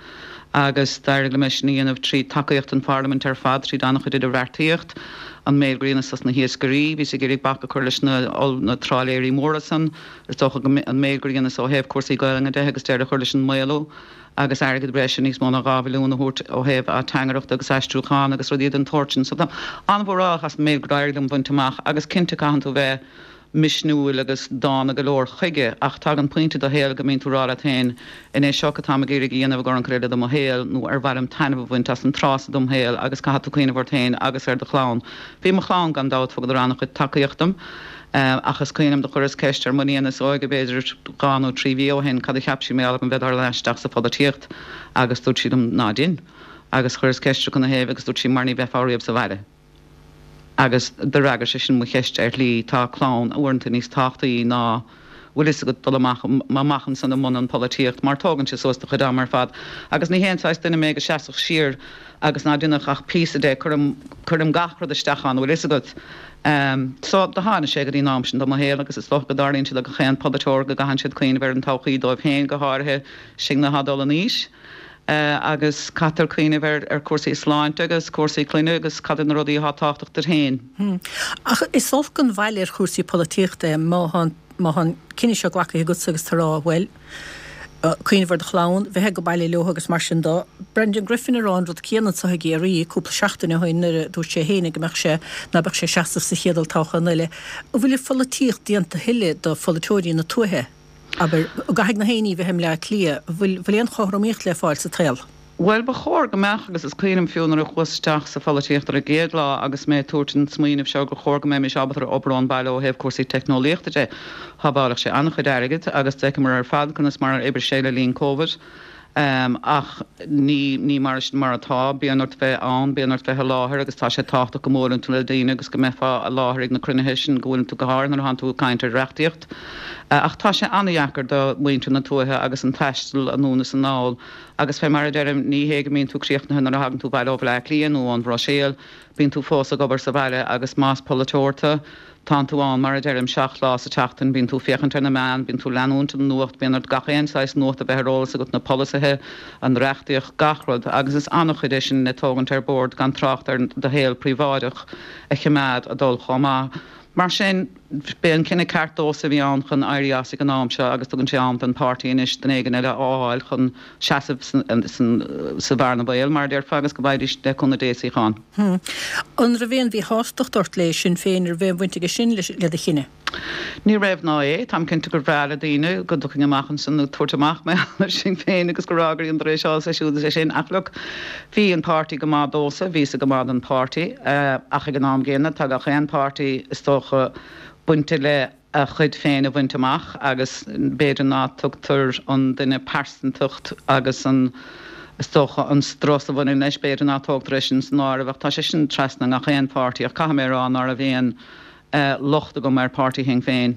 agus d'éirigh liom é sin a dhéanamh trí tacaíocht an Pharlaimint ar fad, tríd an-chuid idirbheartaíocht, an méid gur dheineas dos na hiascairí, bhíos ag iarraidh bac a chur leis na na trálaeirí móra san, is dócha go an méid gur dheineas ó thaobh cúrsaí Gaelainne de agus deireadh a chur leis an maolú. agus airgead breise, níos mó ná 2 mhilliún a thabhairt ó thaobh ateangaireachta agus aistriúchán agus rudaí den tsórt sin. So táim an-mhórálach as an méid gur éirigh liom bhaint amach agus cinnte caitheann tú bheith misniúil agus dána go leor chuige ach tagann pointe i do shaol go mbíonn tú ag rá leat féin an é seo atáim ag iarraidh a dhéanamh i gcomhair an chuid eile de mo shaol nó ar mhaith liom taitneamh a bhaint as an tráth so dem shaol agus caithfidh tú cuimhneamh ort féin agus ar do chlann. Bhí mo chlann gan dabht thugadar an-chuid tacaíocht dom. Ach is cuimhin liom do chuireas ceist ar m'iníon is óige b'fhéidir dhá nó trí mhí ó shin cad a cheap sí mar gheall orm bheith ag dul ar ais isteach sa pholaitíocht agus dúirt sí liom ná dein. Agus chuireas ceist uirthi canathaobh agus dúirt sí mar ní bheifeá riamh sa bhaile. Agus d'fhreagair sé sin mo cheist ar shlí, tá clann uaireanta níos tábhachtaí ná bhfuil fhios agat dul amach amach ansan i mbun an pholaitíocht mar tógann sé suas do chuid ama ar fad agus ní haon saghas duine mé go seasfadh siar agus ná déanfadh ach píosa de, cuirim, cuirim gach rud isteach ann, bhfuil fhios agat. So, do tháinig sé go dtí an am sin de mo shaol agus is dócha go dtarlaíonn sé do gach aon pholaiteoir go gcaitheann siad cuimhneamh ar an todhchaí dóibh féin, go háirithe sinne atá ag dul in aois. Agus caitear cuimhneamh ar, ar chúrsaí sláinte agus cúrsaí clainne agus cad iad na rudaí atá tábhachtach duit féin. Ach is olc an bhail ar chúrsaí polaitíochta é má tá an, má tá an cinneadh seo glactha agatsa agus tú ag rá, bhuel, cuimhneamh ar do chlann, bheith ag baile leo agus mar sin de. Brendan Griffin ag rá an rud céanna anseo i gCiarraí cúpla seachtain ó shin nuair a dúirt sé féin go mbeadh sé, ná beadh sé ag seasamh sa chéad olltoghchán eile. An bhfuil an pholaitíocht déanta a thuilleadh do pholaiteoirí na tuaithe? Abair, an gcaithfidh na héinní bheith i mBleá Cliath? An bhfuil, bhfuil aon chothromaíocht le fáil sa tsaol? Bhuel, ba chóir go mbeadh, agus is cuimhin liom fiú nuair a chuas isteach sa pholaitíocht ar an gcéad lá agus mé ag tabhairt an smaoineamh seo gur chóir go mbeimis ábalta ar obair ón bhaile ó thaobh cúrsaí teicneolaíochta de. Shábhálfadh sé an-chuid airgid agus d'fheiceamar ar fad conas mar a oibrigh sé le linn Covid. Ach ní, ní mar sin mar atá. Bíonn ort bheith ann, bíonn ort bheith i láthair agus tá sé tábhachtach go mbuaileann tú le daoine agus go mbeifeá i láthair ag na cruinnithe sin go bhfuileann tú go háirithe nuair atánn tú ag caint ar reachtaíocht. Ach tá sé an-dheacair do mhuintir na tuaithe agus an taisteal anonn is anall agus fé mar a deirim ní hé go mbíonn tú críochnaithe nuair a thagann tú abhaile ó Bhleá Cliath nó ón Bhruiséil, bíonn tú fós ag obair sa bhaile agus más polaiteoir tú, tánn tú ann, mar a deirim, seacht lá sa tseachtain, bíonn tú féachaint ar na meáin, bíonn tú leanúint an nuacht, bíonn ort gach aon saghas nuacht a bheith ar eolas agat, na polasaithe, an reachtaíocht, gach rud agus is an-chuid é sin le tógaint ar bord gan trácht ar do shaol príobháideach a choimeád a dul chomh maith. Mar sin, b'é an cinneadh ceart domhsa a bhí ann chun éirí as ag an am seo agus tugann sé am don pháirtí anois duine éigin eile a fháil chun seasamh sa bhearna bhaoil, mar a déarfá, agus go bhfaighidís, le cúnamh Dé, suíochán. An raibh aon mhíshástacht ort le Sinn Féin, an raibh aon bhaint aige sin le do chinneadh? Ní raibh ná é. Táim cinnte gur bhreá le daoine go dtiocfainn amach ansin ag tabhairt amach mar gheall ar Sinn Féin agus go rá gur dheineadar é seo is é siúd is é sin ach look, bhí an páirtí go maith domhsa, bhíos-sa go maith don pháirtí ach ag an am gcéanna tá gach aon páirtí is dócha bainte le a chuid féin a bhaint amach agus b'fhéidir ná tugtar an duine pearsantacht agus an is dócha an strus a bhaineann leis, b'fhéidir ná tógtar é sin san áireamh ach tá sé sin trasna i ngach aon pháirtí ach caithfidh mé a rá ná raibh aon locht agam ar pháirtí Shinn Féin.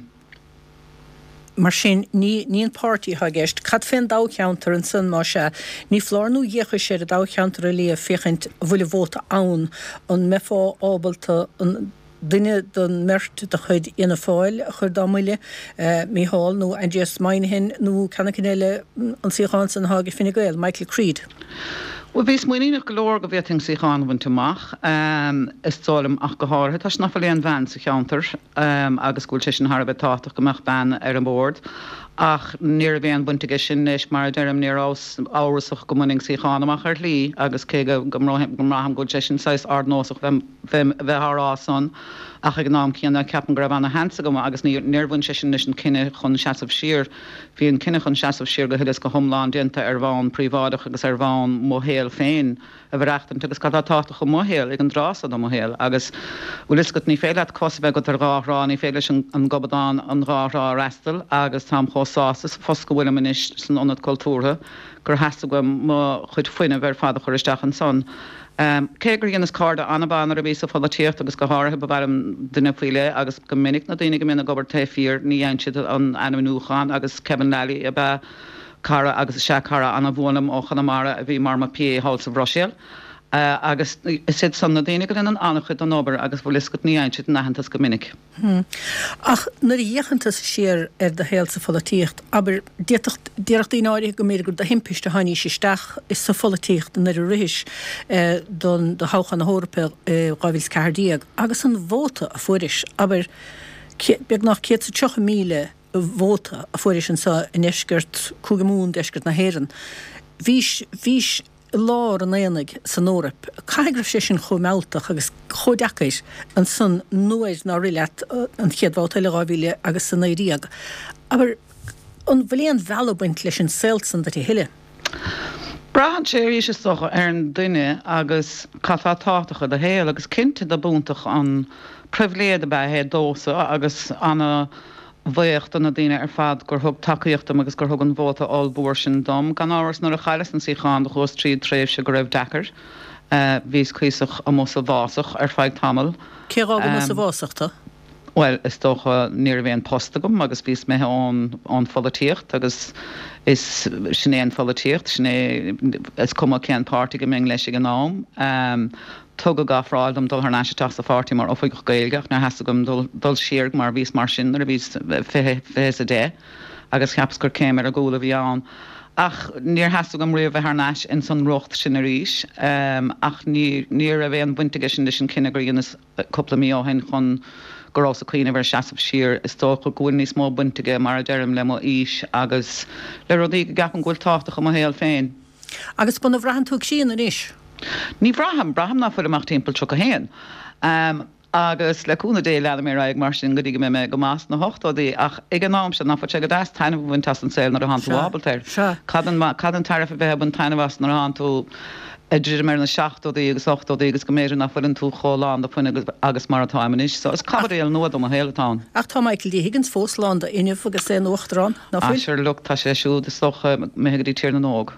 Mar sin, ní ní an páirtí atá i gceist. Cad fén dtoghcheantar ansan, más ea? Ní foláir nó d'fhéachais ar an dtoghcheantar a léamh féachaint an bhfuil an vóta ann. An mbeifeá ábalta an duine den mbeirt de chuid Fhianna Fáil a chur dá mbuille, Mícheál nó Aindrias Moynihan nó ceann éicint eile, an suíochán san atá ag Fine Gael, Michael Creed? Bhuel, bhíos muiníneach go leor go bhféadfainn suíochán a bhaint amach, is dóigh liom, ach go háirithe toisc nach bhfuil aon bhean sa cheantar agus go bhfuil sé sin thar a bheith tábhachtach go mbeadh bean ar an bhord. Ach ní raibh aon bhaint aige sin leis, mar a deirim, ní rabhas amhrasach go mbainfinn suíochán amach ar shlí agus cé go mbraithim go bhfuil sé sin saghas ardnósach bheith á rá san ach ag an am céanna ceapaim go raibh ana-sheans agam agus níor bhain sé sin leis an cinneadh chun seasamh siar. Bhí an cinneadh chun seasamh siar go huile is go hiomlán déanta ar bhonn príobháideach agus ar bhonn mo shaol féin a mhaireachtaint agus cad atá tábhachtach i mo shaol ag an dtráth so de mo shaol agus bhfuil fhios agat ní féidir leat cos a bheith agat ar dhá thrá, ní féidir leis an gobadán an dhá thrá a fhreastal agus táim chomh sásta sa phost go bhfuilim anois san Ionad Cultúrtha gur theastaigh uaim mo chuid fuinnimh ar fad a chur isteach ansan. Cé gur dheineas cairde an-mhaith nuair a bhíos sa pholaitíocht agus go háirithe ba mhaith liom duine faoi leith agus go minic na daoine go mbíonn ag obair taobh thiar ní fhaigheann siad an ainmniúchán agus Kevin Lally ab ea cara agus is ea cara an-bhuan liom ó Chonamara a bhí mar mo PA thall sa Bhruiséil agus is iad san na daoine go ndéanann an-chuid den obair agus bhfuil fhios agat ní fhaigheann siad an aitheantas go minic. Ach nuair a fhéachann tusa siar ar do shaol sa pholaitíocht, abair, d'fhéadfadh, déarfadh daoine áirithe go mb'fhéidir gur de thimpiste a tháinís isteach sa pholaitíocht nuair a rithis don do thoghchán na hEorpa i 2014, agus an vóta a fuairis, abair, beagnach 130,000 vóta a fuairis anseo i ndeisceart, Cúige Mumhan, deisceart na hÉireann. Bhís, bhís. i lár an aonaigh san Eoraip. Caithfidh go raibh sé sin chomh mealltach agus chomh deacair ansan nuair nár rith leat an chéad bhabhta eile 2000 agus 19. Abair, an bhfuil aon mhealladh ag baint leis an saol san duit a thuilleadh? Braitheann sé arís is dócha ar an duine agus cad tá tábhachtach i do shaol agus cinnte dob iontach an pribhléid ab ea é domhsa agus ana bhuíoch do na daoine ar fad gur thug tacaíocht dom agus gur thug an vóta ollmhór sin dom. Gan amhras, nuair a chailleas an suíochán do chuas tríd tréimhse go raibh deacair. Bhíos cuíosach amuigh sa bhfásach ar feadh tamaill. Cé dh'fhág amuigh sa bhfásach tú? Bhuel, is dócha, ní raibh aon post agam agus bhíos imithe ón ón pholaitíocht agus is sin é an pholaitíocht, sin é, is cuma cén páirtí go mbeinn leis ag an am. Tugadh ofráil dom dul thar n-ais isteach sa pháirtí mar oifigeach Gaeilge ach níor theastaigh uaim dul dul siar mar bhíos mar sin nuair a bhíos 20, 20 is a deich agus cheapas gur céim ar an gcúl a bhí ann. Ach níor theastaigh uaim riamh bheith thar n-ais ins an riocht sin arís. Ach ní ní raibh aon bhaint aige sin leis an cinneadh gur dheineas cúpla mí ó shin chun go rabhas ag cuimhneamh ar seasamh siar. Is dócha go bhfuil níos mó baint aige mar a deirim le mo aois agus le rudaí go gceapaim go bhfuil tábhachtach i mo shaol féin. Agus an mbraitheann tú críonna anois? Ní bhraithim. Braithim ná fuilim ach timpeall 31. Agus le cúnamh Dé leanfaidh mé ar aghaidh mar sin go dtí go mbeidh mé go maith sna hochtóidí. Ach ag an am seo, ná fuil sé go deas taitneamh a bhaint as an saol nuair atánn tú ábalta air? Cad an, cad an tairbhe a bheith ag baint taitneamh as nuair atánn tú ag druidim ar na seachtóidí agus ochtóidí agus go mb'fhéidir ná fuileann tú chomh lán de fuinneamh agus mar atáim anois. So is caibidil nua do mo shaol atá ann. Ach tá Michael D Higgins fós lán d'fhuinneamh agus é ina uachtarán. Ná fuil? Sure look, tá sé siúd is dócha imithe go dtí Tír na nÓg.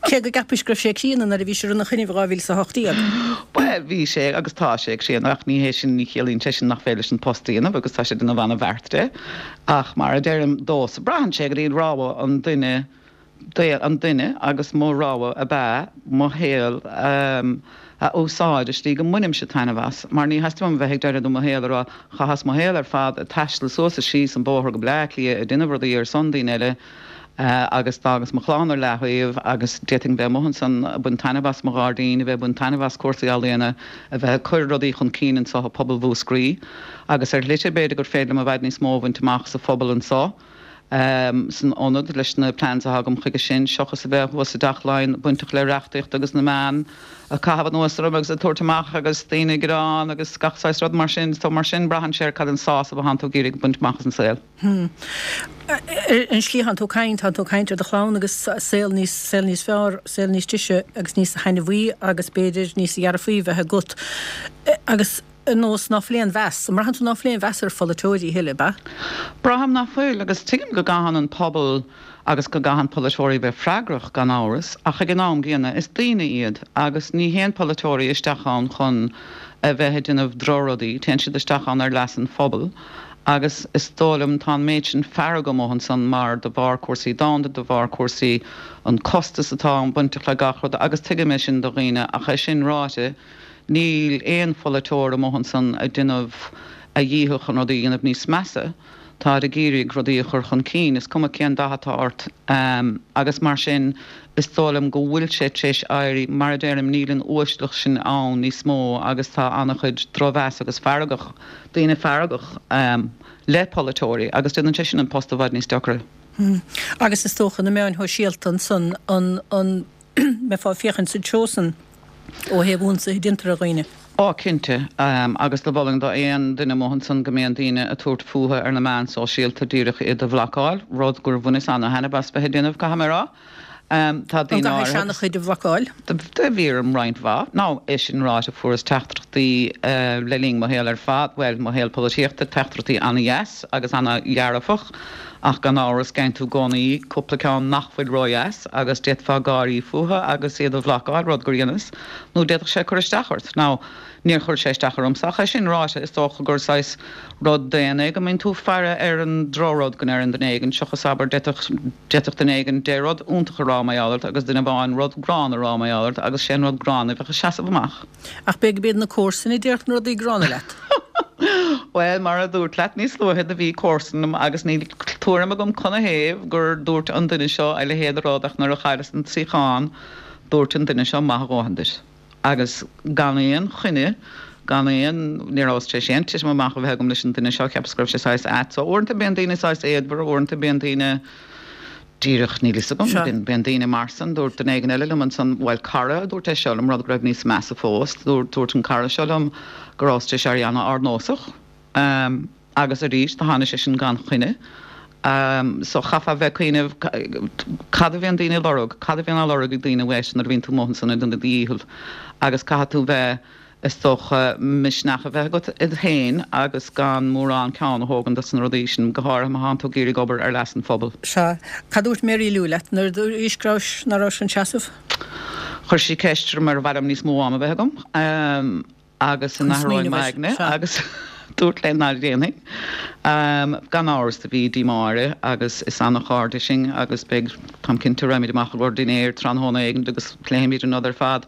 Cé go gceapais go raibh sé críonna nuair a bhís ina choinnibh 2018. Bhuel, bhí sé agus tá sé críonna ach ní hé sin, ní chiallaíonn sé sin nach féidir leis an post a dhéanamh agus tá sé ag déanamh ana-bheart de. Ach mar a deirim domhsa, braitheann sé go dtí rogha an duine an duine agus mo rogha ab ea mo shaol a úsáid i slí go mbainimse taitneamh as, mar ní theastaíonn uaim a bheith ag deireadh de mo shaol ag rá chaitheas mo shaol ar fad ag taisteal suas is síos an bóthar go Bleá Cliath ag déanamh rudaí ar son daoine eile agus d'fhágas mo chlann ar leathaobh agus d'fhéadfainn bheith amuigh ansan ag baint taitneamh as mo ghairdín, a bheith ag baint taitneamh as cúrsaí ealaíona, a bheith ag cur rudaí chun cinn anso i bpobal Mhúscraí agus ar shlite b'fhéidir gur féidir liom i bhfad níos mó a bhaint amach sa phobal anso. San ionad leis na plans atá agam chuige sin, seochas a bheith thuas i dTeach Laighean bainteach le reachtaíocht agus na meáin ag caitheamh anuas orm agus ag tabhairt amach agus daoine ag gearán agus gach saghas rud mar sin. So mar sin braitheann sé ar cad an sásamh atánn tú ag iarraidh baint amach as an saol. An slí atánn tú ag caint, tánn tú ag caint ar do chlann agus saol níos, saol níos fearr, saol níos deise agus níos thaitneamhaí agus b'fhéidir níos dhearfaí bheith agat. Agus. ar nós ná fuil aon mheas, an mbraitheann tú ná fuil aon mheas ar pholaiteoirí a thuilleadh, ab ea? Braithim ná fuil, agus tuigim go gcaitheann an pobal agus go gcaitheann polaiteoirí bheith freagrach, gan amhras, ach ag an am gcéanna, is daoine iad, agus ní théann polaiteoirí isteach ann chun a bheith ag déanamh drochrudaí, téann siad isteach ann ar leas an phobail, agus is dóigh liom, tá an méid sin fearg amuigh ansan mar de bharr cúrsaí domhanda, de bharr cúrsaí an costas atá bainteach le gach rud, agus tuigim é sin do dhaoine, ach é sin ráite, Níl aon pholaiteoir amuigh ansan ag déanamh a dhícheall chun rudaí a dhéanamh níos measa. Táid ag iarraidh rudaí a chur chun cinn, is cuma cén dath atá ort. Agus mar sin, is dóigh liom go bhfuil sé tar éis éirí, mar a deirim, níl an uaisleacht sin ann níos mó agus tá an-chuid drochmheas agus feargach, daoine feargach le polaiteoirí agus déanann sé sin an post i bhfad níos deacra. Agus is dócha na meáin shóisialta ansan, an, an. mbeifeá ag féachaint sa treo san ó thaobh ionsaithe a déantar ar dhaoine. Á, cinnte. Agus do mholfainn do aon duine amuigh ansan go mbíonn daoine ag tabhairt fúthu ar na meáin sóisialta díreach iad a bhlocáil, rud gur bhaineas ana-thaitneamh as bheith ag déanamh, caithfidh mé a rá. Tá An daoine gcaithfidh áirithe. seana-chuid a bhlocáil? Do bhí orm roinnt mhaith. Now, é sin ráite, fuaireas teachtaireachtaí le linn mo shaol ar fad, bhuel, mo shaol polaitíochta, teachtaireachtaí ana-dheas agus ana-dhearfach. Ach gan amhras, geibheann tú i gcónaí cúpla ceann nach bhfuil ródheas agus d'fhéadfá gáirí fúthu agus iad a bhlocáil, rud gur dheineas, nó d'fhéadfadh sé cur isteach ort. Now, níor chuir sé isteach ormsa, ach é sin ráite, is dócha gur saghas rud daonna é go mbíonn tú ag faire ar an drochrud go ndeireann duine éigin, seochas, abair, d'fhéadfadh, d'fhéadfadh duine éigin deich rud iontach a rá mar gheall ort agus duine amháin rud gránna a rá mar gheall ort agus sé an rud gránna a bheadh ag seasamh amach. Ach b'fhéidir gurb iad na comharsana a déarfadh na rudaí gránna leat. Bhuel, mar a dúrt leat níos luaithe, do bhí comharsan liom agus níl tuairim agam canathaobh gur dúirt an duine seo a leithéid de rud ach nuair a chailleas an suíochán, dúirt an duine seo maith a dhóthain duit. Agus gan aon choinne, gan aon, ní rabhas tar éis aon titim amach a bheith agam leis an duine seo, cheapas go raibh sé saghas ait. So uaireanta bíonn daoine saghas éadmhar, uaireanta bíonn daoine. Díreach, níl fhios agam. Bíonn, bíonn daoine mar san. Dúirt duine éigin eile liom ansan, bhuel, cara a dúirt é seo liom, rud go raibh níos measa fós. Dúirt, dúirt an cara seo liom go rabhas tar éis éirí an-ardnósach. Agus arís, do tháinig sé sin gan choinne. So chaithfeá bheith ag cuimhneamh cad a bhíonn daoine ag lorg, cad a bhíonn á lorg ag daoine uait nuair a bhíonn tú amuigh ansan ag déanamh do dhícheall. Agus caithfidh tú bheith. Is dócha misneach a bheith agat ionat féin agus gan mórán ceann a thógaint dos na rudaí sin, go háirithe má thánn tú ag iarraidh obair ar leas an phobail. Sea. Cad dúirt Mary Lou leat nuair a dúraís go rabhais, ná rabhais chun seasamh? Chuir sí ceist orm ar mhaith liom níos mó ama a bheith agam agus an Chun n-athróinn smaoineamh air. m'aigne Sea. agus dúrt léi ná déanfainn. Gan amhras do bhí díomá uirthi agus is ana-chairde sinn agus beidh, táim cinnte, raghaimid amach i gcomhair dinnéir tráthnóna éigin agus pléifimid an rud ar fad.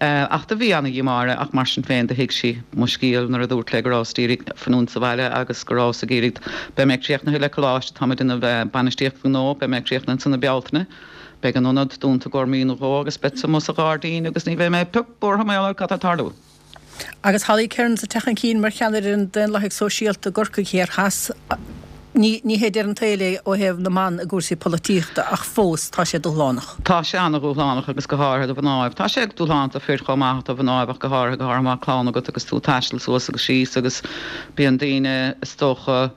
Ach do bhí ana-dhíomá uirthi ach mar sin féin do thuig sí mo scéal nuair a dúrt léi go rabhas d'iarraidh fanúint sa bhaile agus go rabhas ag iarraidh, beidh mé críochnaithe le coláiste, tá mé ag déanamh bainistíocht gnó, beidh mé críochnaithe ansan i Bealtaine, beidh an ionad dúnta i gcomhair mí nó dhó agus beadsa amuigh sa ghairdín agus ní bheidh mé pioc buartha mar gheall ar cad tá ag tarlú. Agus Holly Cairns ag teacht chun cinn mar cheannaire an Daonlathaigh Sóisialta i gCorcaigh Thiar Theas, ní hé deireadh an tsaoil é ó thaobh na mban i gcúrsaí polaitíochta ach fós tá sé dúshlánach. Tá sé an-dhúshlánach agus go háirithe do mhnáibh. Tá sé dúshlánach do fir chomh maith ach do mhnáibh ach go háirithe, go háirithe má tá clann agat agus tú ag taisteal suas agus síos agus bíonn daoine is dócha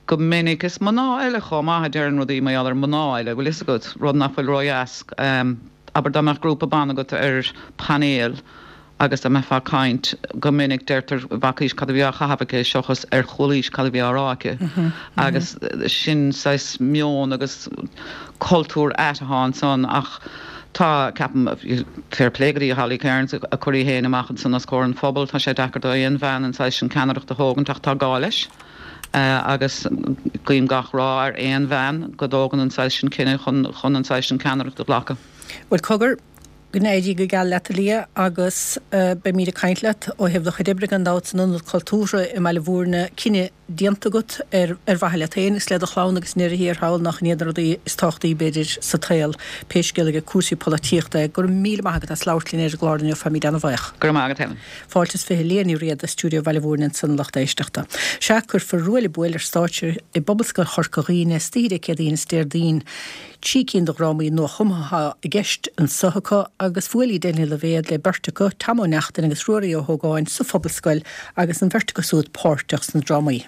go minic, is mná eile chomh maith a deireann rudaí mar gheall ar mná eile, bhfuil fhios agat, rud nach bhfuil ródheas. Abair dá mbeadh grúpa ban agat ar painéal agus dá mbeifeá ag caint, go minic deirtear bhfacaís cad a bhí á chaitheamh aici seochas ar chualaís cad a bhí á rá aici. Agus sin saghas meon agus cultúr ait atá ansan ach tá, ceapaim, fair play go dtí Holly Cairns ag cur í féin amach ansan os comhair an phobail, tá sé deacair do aon bhean an saghas sin ceannaireacht a thógaint ach tá gá leis. Agus guím gach ráth ar aon bhean go dtógann an saghas sin cinneadh chun an saghas sin ceannaireacht a ghlacadh. Bhuel, cogar, go n-éirí go geal leat, a Liadh, agus beimid ag caint leat ó thaobh do chuid oibre gan dabht san Ionad Cultúrtha i mBaile Bhúirne. Cinneadh. déanta agat ar mhaithe leat féin agus le do chlann agus i ndeireadh thiar thall nach iad na rudaí is tábhachtaí b'fhéidir sa tsaol, pé scéal é cúrsaí polaitíochta é. Go raibh míle maith agat as labhairt linn ar an gclár inniu, táimid ana-bhuíoch. Go raibh maith agat Helen. Fáilte is 20 Leah Ní Riada, Stiúideo Bhaile Mhúirne ansan a lucht éisteachta. Sea, cuirfear Ruaille Buaille ar stáitse i bPobalscoil Chorca Dhuibhne istoíche Dé Céadaoin is Déardaoin. Trí cinn de dhrámaí nuachumtha atá i gceist anso acu agus bhuail Edel Ní Loibhéad le beirt acu, Tom Ó Neachtain agus Ruairí Ó hÓgáin sa Phobalscoil agus an bheirt acu súd páirteach sna drámaí.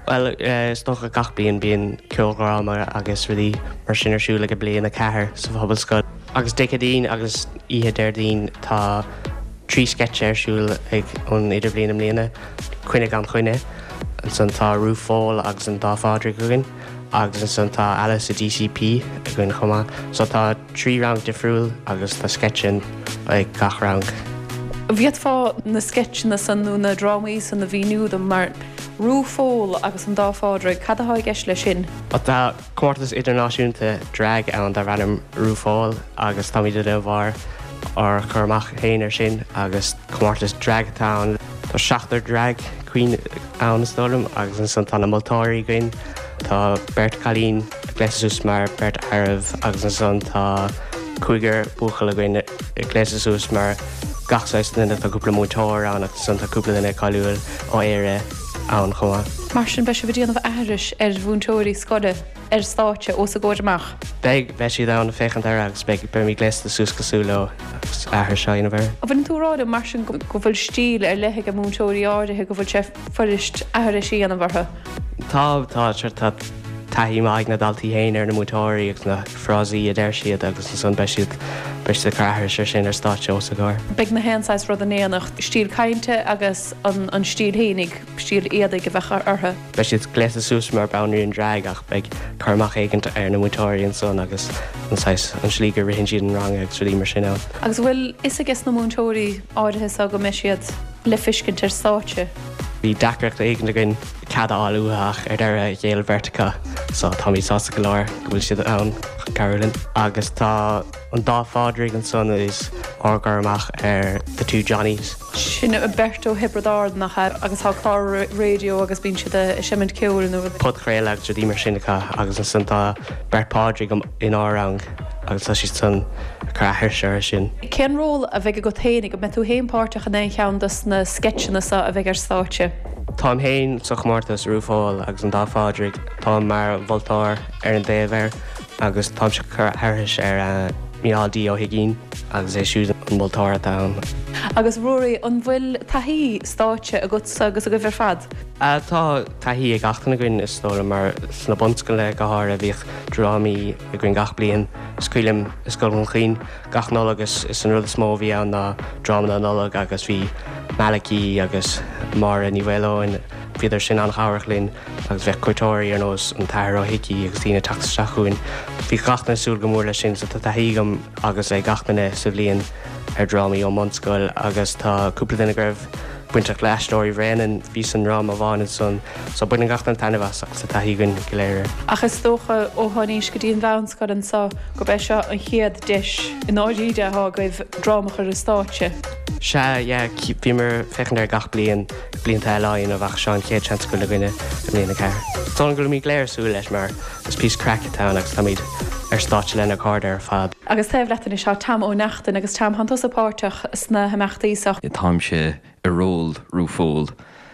Bhuel, is dócha gach bliain bíonn ceoldráma agus rudaí mar sin ar siúl ag bliain 4 sa Phobalscoil. Agus Dé Céadaoin agus oíche Déardaoin tá trí sceitse ar siúl ag an Idirbhliain i mbliana, Coinne gan Choinne, ansan tá Rúphól agus an Dá Phádraig againn agus ansan tá Alice i DCP againn chomh maith. So tá trí rang difriúil agus tá sceitse ag gach rang. An bhféadfá na sceitseanna san nó na drámaí san a mhíniú dom mar Rúphól agus an Dá Phádraig, cad atá i gceist leis sin? Tá comórtas idirnáisiúnta drag ann darb ainm RuPaul agus táimid ag déanamh ár ár cur amach féin air sin agus comórtas drag atá ann. Tá seachtar drag queen ann is dóigh liom agus ansan tá na moltóirí againn. Tá beirt cailín gléasta suas mar beirt fhearaibh agus ansan tá cúigear buachaill againn gléasta suas mar gach saghas duine. Tá cúpla múinteoir ann agus ansan tá cúpla duine cáiliúil ó Éire ann chomh maith. Mar sin beidh sibh ag déanamh aithris ar mhúinteoirí scoile ar stáitse os a gcomhair amach? Beidh, beidh siad ann ag féachaint air agus beidh, beimid gléasta suas cosúil leo agus aithris á dhéanamh air. An bhfuileann tú ag rá liom mar sin go bhfuil stíl ar leith ag múinteoirí áirithe, go bhfuil sé fuirist aithris a dhéanamh orthu? Tá, tá, tá taithí maith ag na daltaí féin ar na múinteoirí agus na frásaí a deir siad agus ansan beidh siad, beidh siad ag cur aithris ar sin ar stáitse os a gcomhair. Beidh na haon saghas rud in éineacht, stíl cainte agus an stíl fhéinig, stíl éadaigh a bheadh orthu. Beidh siad gléasta suas mar banríon drag ach beidh cur amach éigint ar na múinteoirí ansan agus an saghas, an slí go ritheann siad an rang agus rudaí mar sin ann. Agus an bhfuil fhios ages na múinteoirí áirithe so go mbeidh siad le feiscint ar stáitse? Bhí deacracht éigin againn cead a fháil uathu ach ar deireadh ghéill beirt acu so táimid sásta go leor go bhfuil siad ann chun cabhrú linn. Agus tá an dá Phádraig ansan is ár gcur amach ar The Two Johnnies. Sin beirt ó Thiobraid Árann nach ea? Agus tá clár raidió agus bíonn siad ag seimint ceoil nó rud. Podchraoladh agus rudaí mar sin acu agus ansan tá beirt Phádraig inár rang agus tá siad san ag cur aithris orthu sin. Cén ról a bheidh agat féin? An mbeidh tú féin páirteach in aon cheann dos na sceitseanna seo a bheidh ar stáitse? Táim féin sa chomórtas RuPaul agus an Dá Phádraig. Táim mar mholtóir ar an dtaobh air agus táimse ag cur aithris ar Mícheál D Ó hUiginn agus é siúd an moltóir atá ann. Agus Ruairí, an bhfuil taithí stáitse agatsa agus agaibh ar fad? Tá taithí ag gach duine againn is dóigh liom mar sna bunscoileanna go háirithe bhíodh drámaí againn gach bliain. Is cuimhin liom i Scoil Dhún Chaoin gach Nollaig is is an rud is mó a bhí ann ná dráma na Nollag agus bhí Malachy agus Máire Ní Mhaoileoin, bhíodar sin an-chabhrach linn agus bheadh cuairteoirí ar nós an tAthair Ó hIcí agus daoine ag teacht isteach chugainn. Bhí gach duine ag súil go mór leis sin so tá taithí agam agus ag gach duine sa bhliain ar drámaí ón mbunscoil agus tá cúpla duine go raibh bainteach le Aisteoirí Bhréanainn, bhí sa ndráma amháin ansan so baineann gach duine taitneamh as agus tá taithí againn go léir air. Ach is dócha ó seo anois go dtí an mheánscoil anso gurb é seo an chéad deis i ndáiríre atá agaibh dráma a chur ar stáitse. Sea, yeah, bhíomar ag féachaint air gach bliain, blianta eile á dhéanamh ach seo an chéad seans go bhfuil againne i mbliain 4. Is dóigh liom go bhfuilimid go léir ag súil leis mar is píosa craic atá ann agus táimid ar stáitse lenár gcairde ar fad. Agus taobh leat anois tá Tom Ó Neachtain agus Tom, thánn tusa páirteach sna himeachtaí seo. Táimse i ról RuPaul.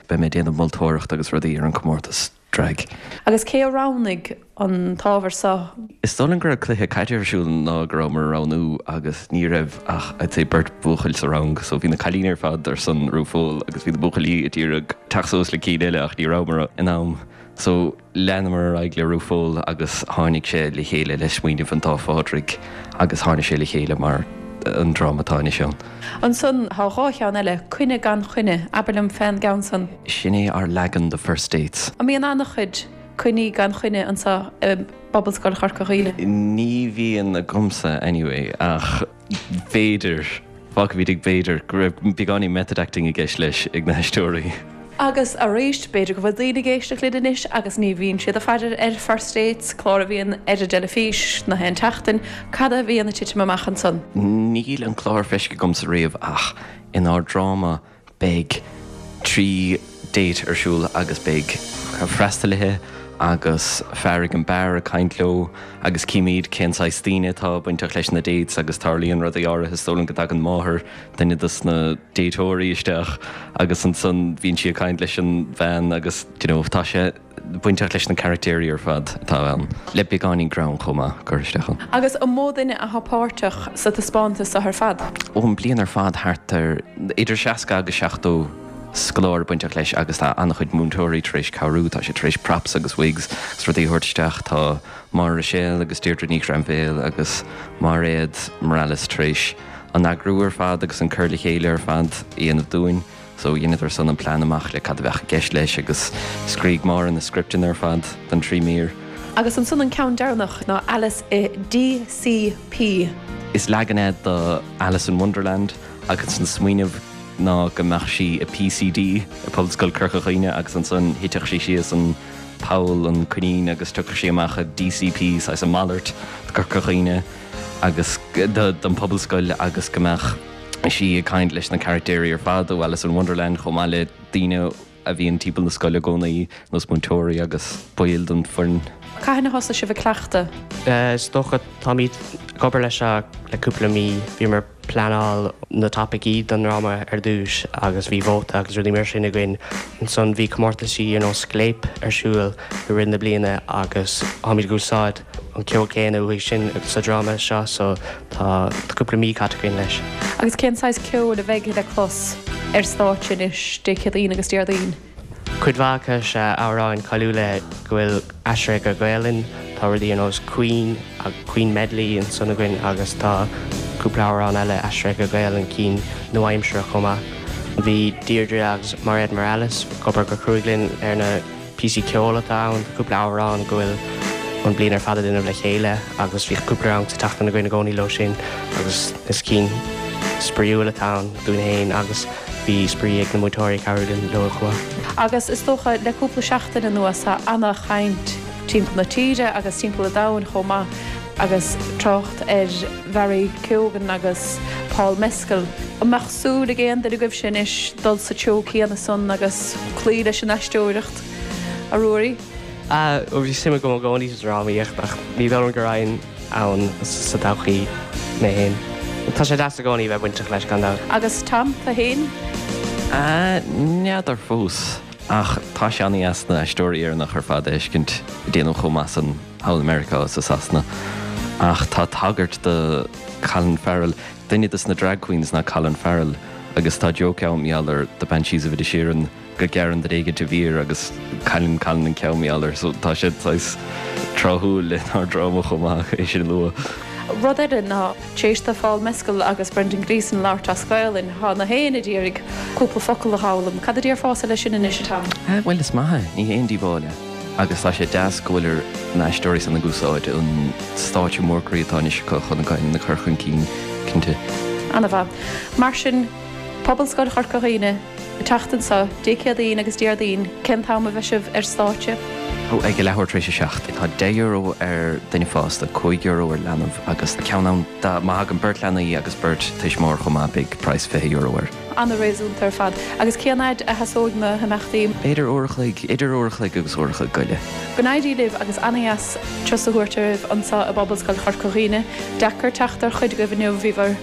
Beidh mé ag déanamh moltóireacht agus rudaí ar an comórtas drag. Agus cé a roghnaigh an t-ábhar seo? Is dóigh liom go raibh cluiche caide ar siúl an lá go rabhamar ag roghnú agus ní raibh ach I'd say beirt bhuachaill sa rang so bhí na cailíní ar fad ar son RuPaul agus bhí na buachaillí ag iarraidh teacht suas le cinn eile ach ní rabhamar in am so Leanamar ar aghaidh le RuPaul agus tháinig sé le chéile le smaoineamh an dá Phádraig agus tháinig sé le chéile mar an dráma atá anois ann. Ansan tá dhá cheann eile, Coinne gan Choinne, abair liom fén gceann san. Sin é ár leagan de First Dates. An mbíonn an-chuid coinní gan choinne anso i bPobalscoil Chorca Dhuibhne? Ní bhíonn agamsa anyway ach. B'fhéidir. Fágfaimid ag b'fhéidir go raibh beagáinín method acting i gceist leis ag na haisteoirí. Agus arís, b'fhéidir go bhfuil daoine ag éisteacht linn anois agus ní bhíonn siad ag faire ar First Dates, clár a bhíonn ar an dteilifís na haon tseachtain. Cad a bhíonn ag titim amach ansan? Níl an clár feiscithe agamsa riamh ach inár dráma beidh 3 date ar siúl agus beidh freastalaithe agus fear ag an beár ag caint leo agus címid cén saghas daoine atá bainteach leis na dates agus tarlaíonn rudaí áirithe, is dóigh liom go dtagann máthair duine dos na dateoirí isteach agus ansan bíonn sí ag caint leis an bhean agus you know tá sé bainteach leis na caractéirí ar fad atá ann, le beagáinín greann chomh maith curtha isteach ann. Agus an mó duine atá páirteach sa taispeántas seo ar fad? Ó an bliain ar fad thart ar idir 60 agus 70 scoláire bainteach leis agus tá an-chuid múinteoirí tar éis cabhrú, tá siad tar éis props agus wigs agus rudaí a thabhairt isteach, tá Máire Ruiséal agus Deirdre Ní Ghrainbhéil agus Mairéad Morales tar éis an eagrú ar fad agus an cur le chéile ar fad a dhéanamh dúinn. So dheineadar san an plean amach le cad a bheadh i gceist leis agus scrígh Máire na scripteanna ar fad don trí mír. Agus ansan an ceann deireanach ná Alice i DCP. Is leagan é do Alice in Wonderland agus an smaoineamh ná go mbeadh sí i PCD i Pobalscoil Corca Dhuibhne agus ansan thitfeadh sí síos an poll, an coinín agus tiocfadh sí amach i DCP, saghas a malairt do Corca Dhuibhne agus don Pobalscoil agus go mbeadh sí ag caint leis na caractéirí ar fad ó Alice in Wonderland chomh maith le daoine a bhíonn timpeall na scoile i gcónaí, nós múinteoirí agus baill den foireann. Cathain a thosaigh sibh ag cleachtadh? Is dócha, táimid ag obair leis seo le cúpla mí. Bhíomar ag pleanáil na topaicí don ndráma ar dtús agus bhí vóta agus rudaí mar sin againn. Ansan bhí comórtaisí ar nós Scléip ar siúl i rith na bliana agus táimid ag úsáid an ceol céanna uaidh sin sa dráma seo so tá cúpla mí caite againn leis. Agus cén saghas ceoil a bheidh le clos ar stáitse anois Dé Céadaoin agus Déardaoin? Cuid mhaith acu is ea amhráin cáiliúla go bhfuil aistrithe go Gaelainn. Tá rudaí ar nós Queen, Queen Medley ansan againn agus tá cúpla amhrán eile aistrithe go Gaelainn, cinn nua-aimseartha chomh maith. Bhí Deirdre agus Mairéad Morales ag obair go cruaidh linn ar na. píosaí ceoil atá ann, tá cúpla amhrán go bhfuil an bliain ar fad a déanamh le chéile agus bhí cúpla rang sa tseachtain againn i gcónaí leo sin agus is cinn spraíúil atá ann dúinn féin agus bhí spraoi ag na múinteoirí ag cabhrú linn leo chomh maith. Agus is dócha le cúpla seachtain anuas tá ana-chaint timpeall na tíre agus timpeall an domhain chomh maith agus trácht ar Bharry Keoghan agus Paul Mescal. An mbeadh súil ag aon duine agaibhse anois dul sa treo céanna san agus cloí leis an aisteoireacht, a Ruairí? Ah, bhí suim agam i gcónaí sa drámaíocht ach ní dóigh liom go raghainn ann sa todhchaí mé féin. Tá sé deas i gcónaí bheith bainteach leis gan dabht. Agus Tom, tú féin? Ah, n'fheadar fós. Ach tá sé an-dheas na haisteoirí Éireannacha ar fad a fheiscint ag déanamh chomh maith san thall i Meiriceá is i Sasana. Ach tá tagairt do Colin Farrell, duine dos na drag queens ná Colin Farrell agus tá joke ann mar gheall ar The Banshees of Inisherin go gearrann duine éigint a mhéar agus cailleann Colin an ceann mar gheall air so tá sé saghas tráthúil lenár dráma chomh maith é sin a lua. Rud eile ná tar éis do Phaul Mescal agus Brendan Gleeson labhairt as Gaolainn, tá na héinne ag iarraidh cúpla focal a dh'fhoghlaim. Cad a déarfása leis sin anois, a Tom? Bhuel is maith é, ní haon díobháil é. Agus tá sé deas go bhfuil na haisteoirí san ag úsáid an stáitse mór croí atá anois acu chun a Gaelainn a chur chun cinn, cinnte. Ana-mhaith. Mar sin, Pobalscoil Chorca Dhuibhne, an tseachtain seo, Dé Céadaoin agus Déardaoin, cén t-am a bheidh sibh ar stáitse? Ó, ag a leathuair tar éis a 7. Tá €10 ar duine fásta, €5 ar leanbh agus ceann ann dá, má thagann beirt leanaí agus beirt tuismitheoir chomh maith beidh praghas €20 air. Ana-réasúnta ar fad. Agus cén fhaid a sheasóidh na himeachtaí? B'fhéidir uair a chloig, idir uair a chloig agus uair a chloig go leith. Go n-éirí libh agus ana-dheas turas a thabhairt oraibh anseo i bPobalscoil Chorca Dhuibhne. Deacair teacht ar chuid agaibh inniu, bhíobhair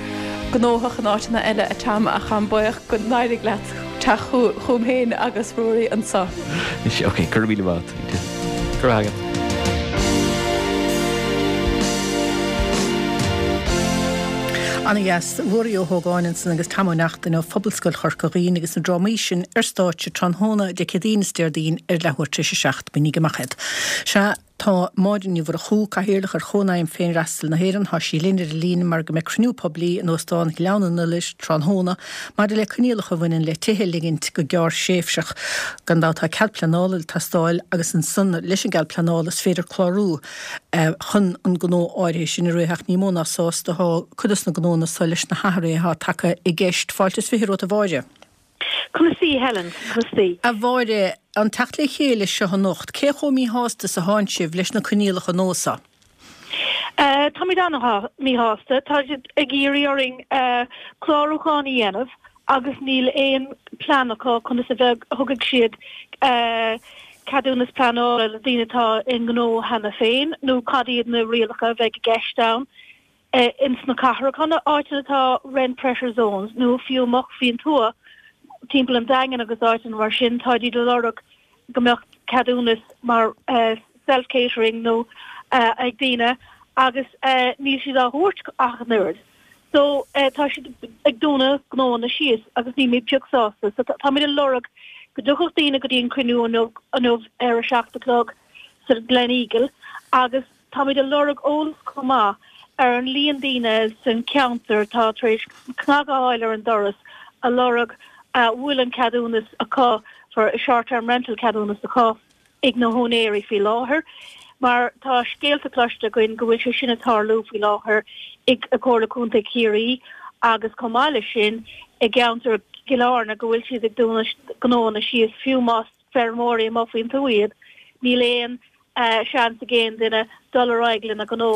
gnóthach in áiteanna eile a Tom ach táim buíoch go n-éirigh leat teacht chugam féin agus Ruairí anseo. Ok, go raibh míle maith agat. Go raibh agat. Ana-dheas. Ruairí Ó hÓgáin ansan agus Tom Ó Neachtain ó Phobalscoil Chorca Dhuibhne agus na drámaí sin ar stáitse tráthnóna Dé Céadaoin is Déardaoin ar leathuair tar éis a 7. Bainigí amach iad. Sea, tá Máire Ní Mhurchú, Cathaoirleach ar Chónaidhm Féinfhreastail na hÉireann, tá sí linn ar an líne mar go mbeidh cruinniú poiblí in Óstán Ghleann an Iolair tráthnóna maidir le coinníollacha a bhaineann le tithe a ligint go gearrthréimhseach. Gan dabht tá cead pleanála ag teastáil agus ansan leis an gcead pleanála is féidir clárú chun an gnó áirithe sin a rith ach ní mó ná sásta atá cuid dos na gnónna so leis na hathruithe atá tagtha i gceist. Fáilte is 20 romhat a Mháire. Conas taoi, Helen? Conas taoi? A Mháire, an teacht le chéile seo anocht, cé chomh míshásta is atánn sibh leis na coinníollacha nua seo? Táimid an-mhíshásta. Tá siad ag iarraidh orainn clárúchán a dhéanamh agus níl aon plean acu conas a bheidh, thugfaidh siad ceadúnas pleanála le daoine atá i ngnó cheana féin nó cad iad na rialacha a bheidh i gceist ann. ins na cathracha, na áiteanna atá rent pressure zones nó fiú amuigh faoin tuath timpeall an Daingin agus áiteanna mar sin, táid ag lorg go mbeadh ceadúnas mar self catering nó ag daoine agus níl siad á thabhairt ach an oiread. So tá siad ag dúnadh gnóanna síos agus nílimid pioc sásta. So táimid ag lorg go dtiocfadh daoine go dtí an cruinniú inniu ar a 7 a chlog sa Gleneagle agus Táimid ag lorg eolas chomh maith ar an líon daoine san cheantar atá tar éis cnag a fháil ar an doras a lorg a bhfuil an ceadúnas acu for short term rental ceadúnas acu ag na húinéirí faoi láthair mar tá scéalta cloiste againn go bhfuil sé sin ag tarlú faoi láthair i Comhairle Contae Chiarraí agus chomh maith leis sin i gceantar Chill Airne go bhfuil siad ag dúnadh gnóanna síos fiú más feirmeoirí amuigh faoin tuath iad níl aon seans ag aon duine dul ar aghaidh lena ngnó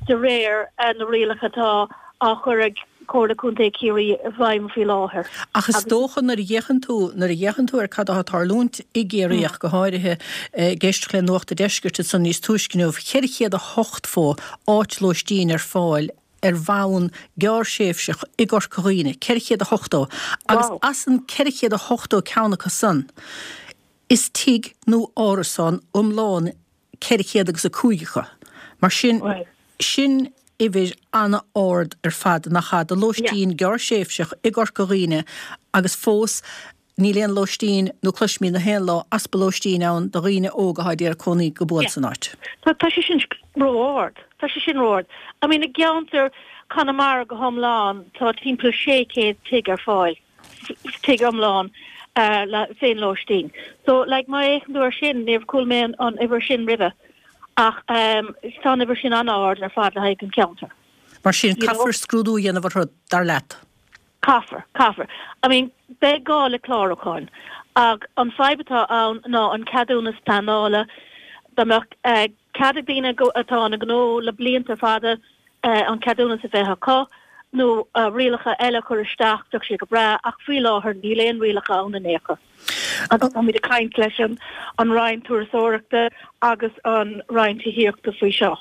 de réir na rialacha atá á chur ag Comhairle Contae Chiarraí i bhfeidhm faoi láthair. Ach is dócha nuair a fhéachann tú, nuair a fhéachann tú ar cad atá ag tarlúint i gCiarraí ach go háirithe, ag éisteacht le Nuacht an Deiscirt ansan níos túisce inniu, 480 áit lóistín ar fáil ar bhonn gearrthréimhseach i gCorca Dhuibhne, 480, agus as an 480 ceann acu san, Is tigh nó árasán iomlán 400 agus 5 acu. Mar sin, sin uimhir an-ard ar fad, nach ea, do lóistín gearrthréimhseach i gCorca Dhuibhne agus fós níl aon lóistín nó cloisimid na haon lá easpa lóistín ann do dhaoine óga atá ag iarraidh cónaí go buan san áit. Tá sé sin ró-ard. Tá sé sin ró-ard. I mean, i gceantar Conamara go hiomlán tá timpeall 600 tigh ar fáil. tigh iomlán le féinlóistín. So, like, má fhéachann tú ar sin, níor chuala mé an uimhir sin roimhe ach tá an uimhir sin an-ard ar fad le haghaidh an ceantar. Mar sin, caithfear scrúdú a dhéanamh orthu, dar leat? Caithfear, caithfear. I mean, beidh gá le clárúcháin ach an fadhb atá ann ná an ceadúnas pleanála, dá mbeadh cead ag daoine atá ina ngnó le blianta fada, an ceadúnas a bheith acu nó rialacha eile a chur isteach, bheadh sé go breá, ach faoi láthair níl aon rialacha ann in aon chor. Agus táimid ag caint leis an Roinn Turasóireachta agus an Roinn Tithíochta faoi seo.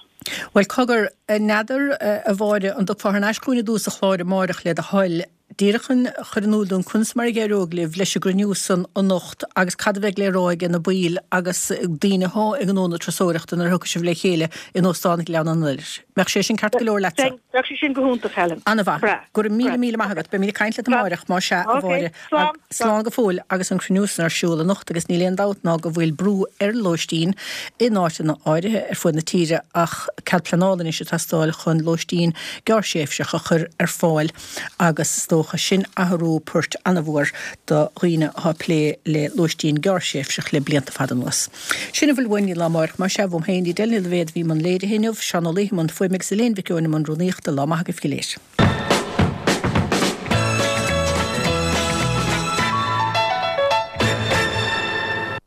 Bhuel, cogar, n'fheadar, a Mháire, an dtiocfá thar n-ais chugainn i dtús an chláir amáireach le do thoil, Díreach chun a chur in iúl dúinn conas mar a d'éireoidh libh leis an gcruinniú san anocht agus cad a bheidh le rá aige na baill agus daoine athá i ngnó na turasóireachta nuair a thiocfaidh sibh le chéile in Óstán Ghleann an Iolair. Mbeadh sé sin ceart go leor leatsa? Bheadh sé sin go hiontach, Helen. An-mhaith. Breá. Go raibh míle míle maith agat. Beimid ag caint leat amáireach, más ea, a Mháire. Slán. Slán go fóill agus an cruinniú san ar siúl anocht agus níl aon dabht ná go bhfuil brú ar lóistín in áiteanna áirithe ar fuaid na tíre ach cead pleanála anois ag teastáil chun lóistín gearrthréimhseach a chur ar fáil agus is dócha sin athrú poirt an-mhór do dhaoine atá ag plé le lóistín gearrthréimhseach le blianta fada anuas. Sin a bhfuil uainn go dtí lá amáireach más ea, uaim féin, Edel Ní Loibhéad a bhí i mbun léirithe inniu, Seán Ó Laoithe i mbun fuaime agus Elaine Mhic Eoin i mbun rúnaíochta. Lá maith agaibh go léir.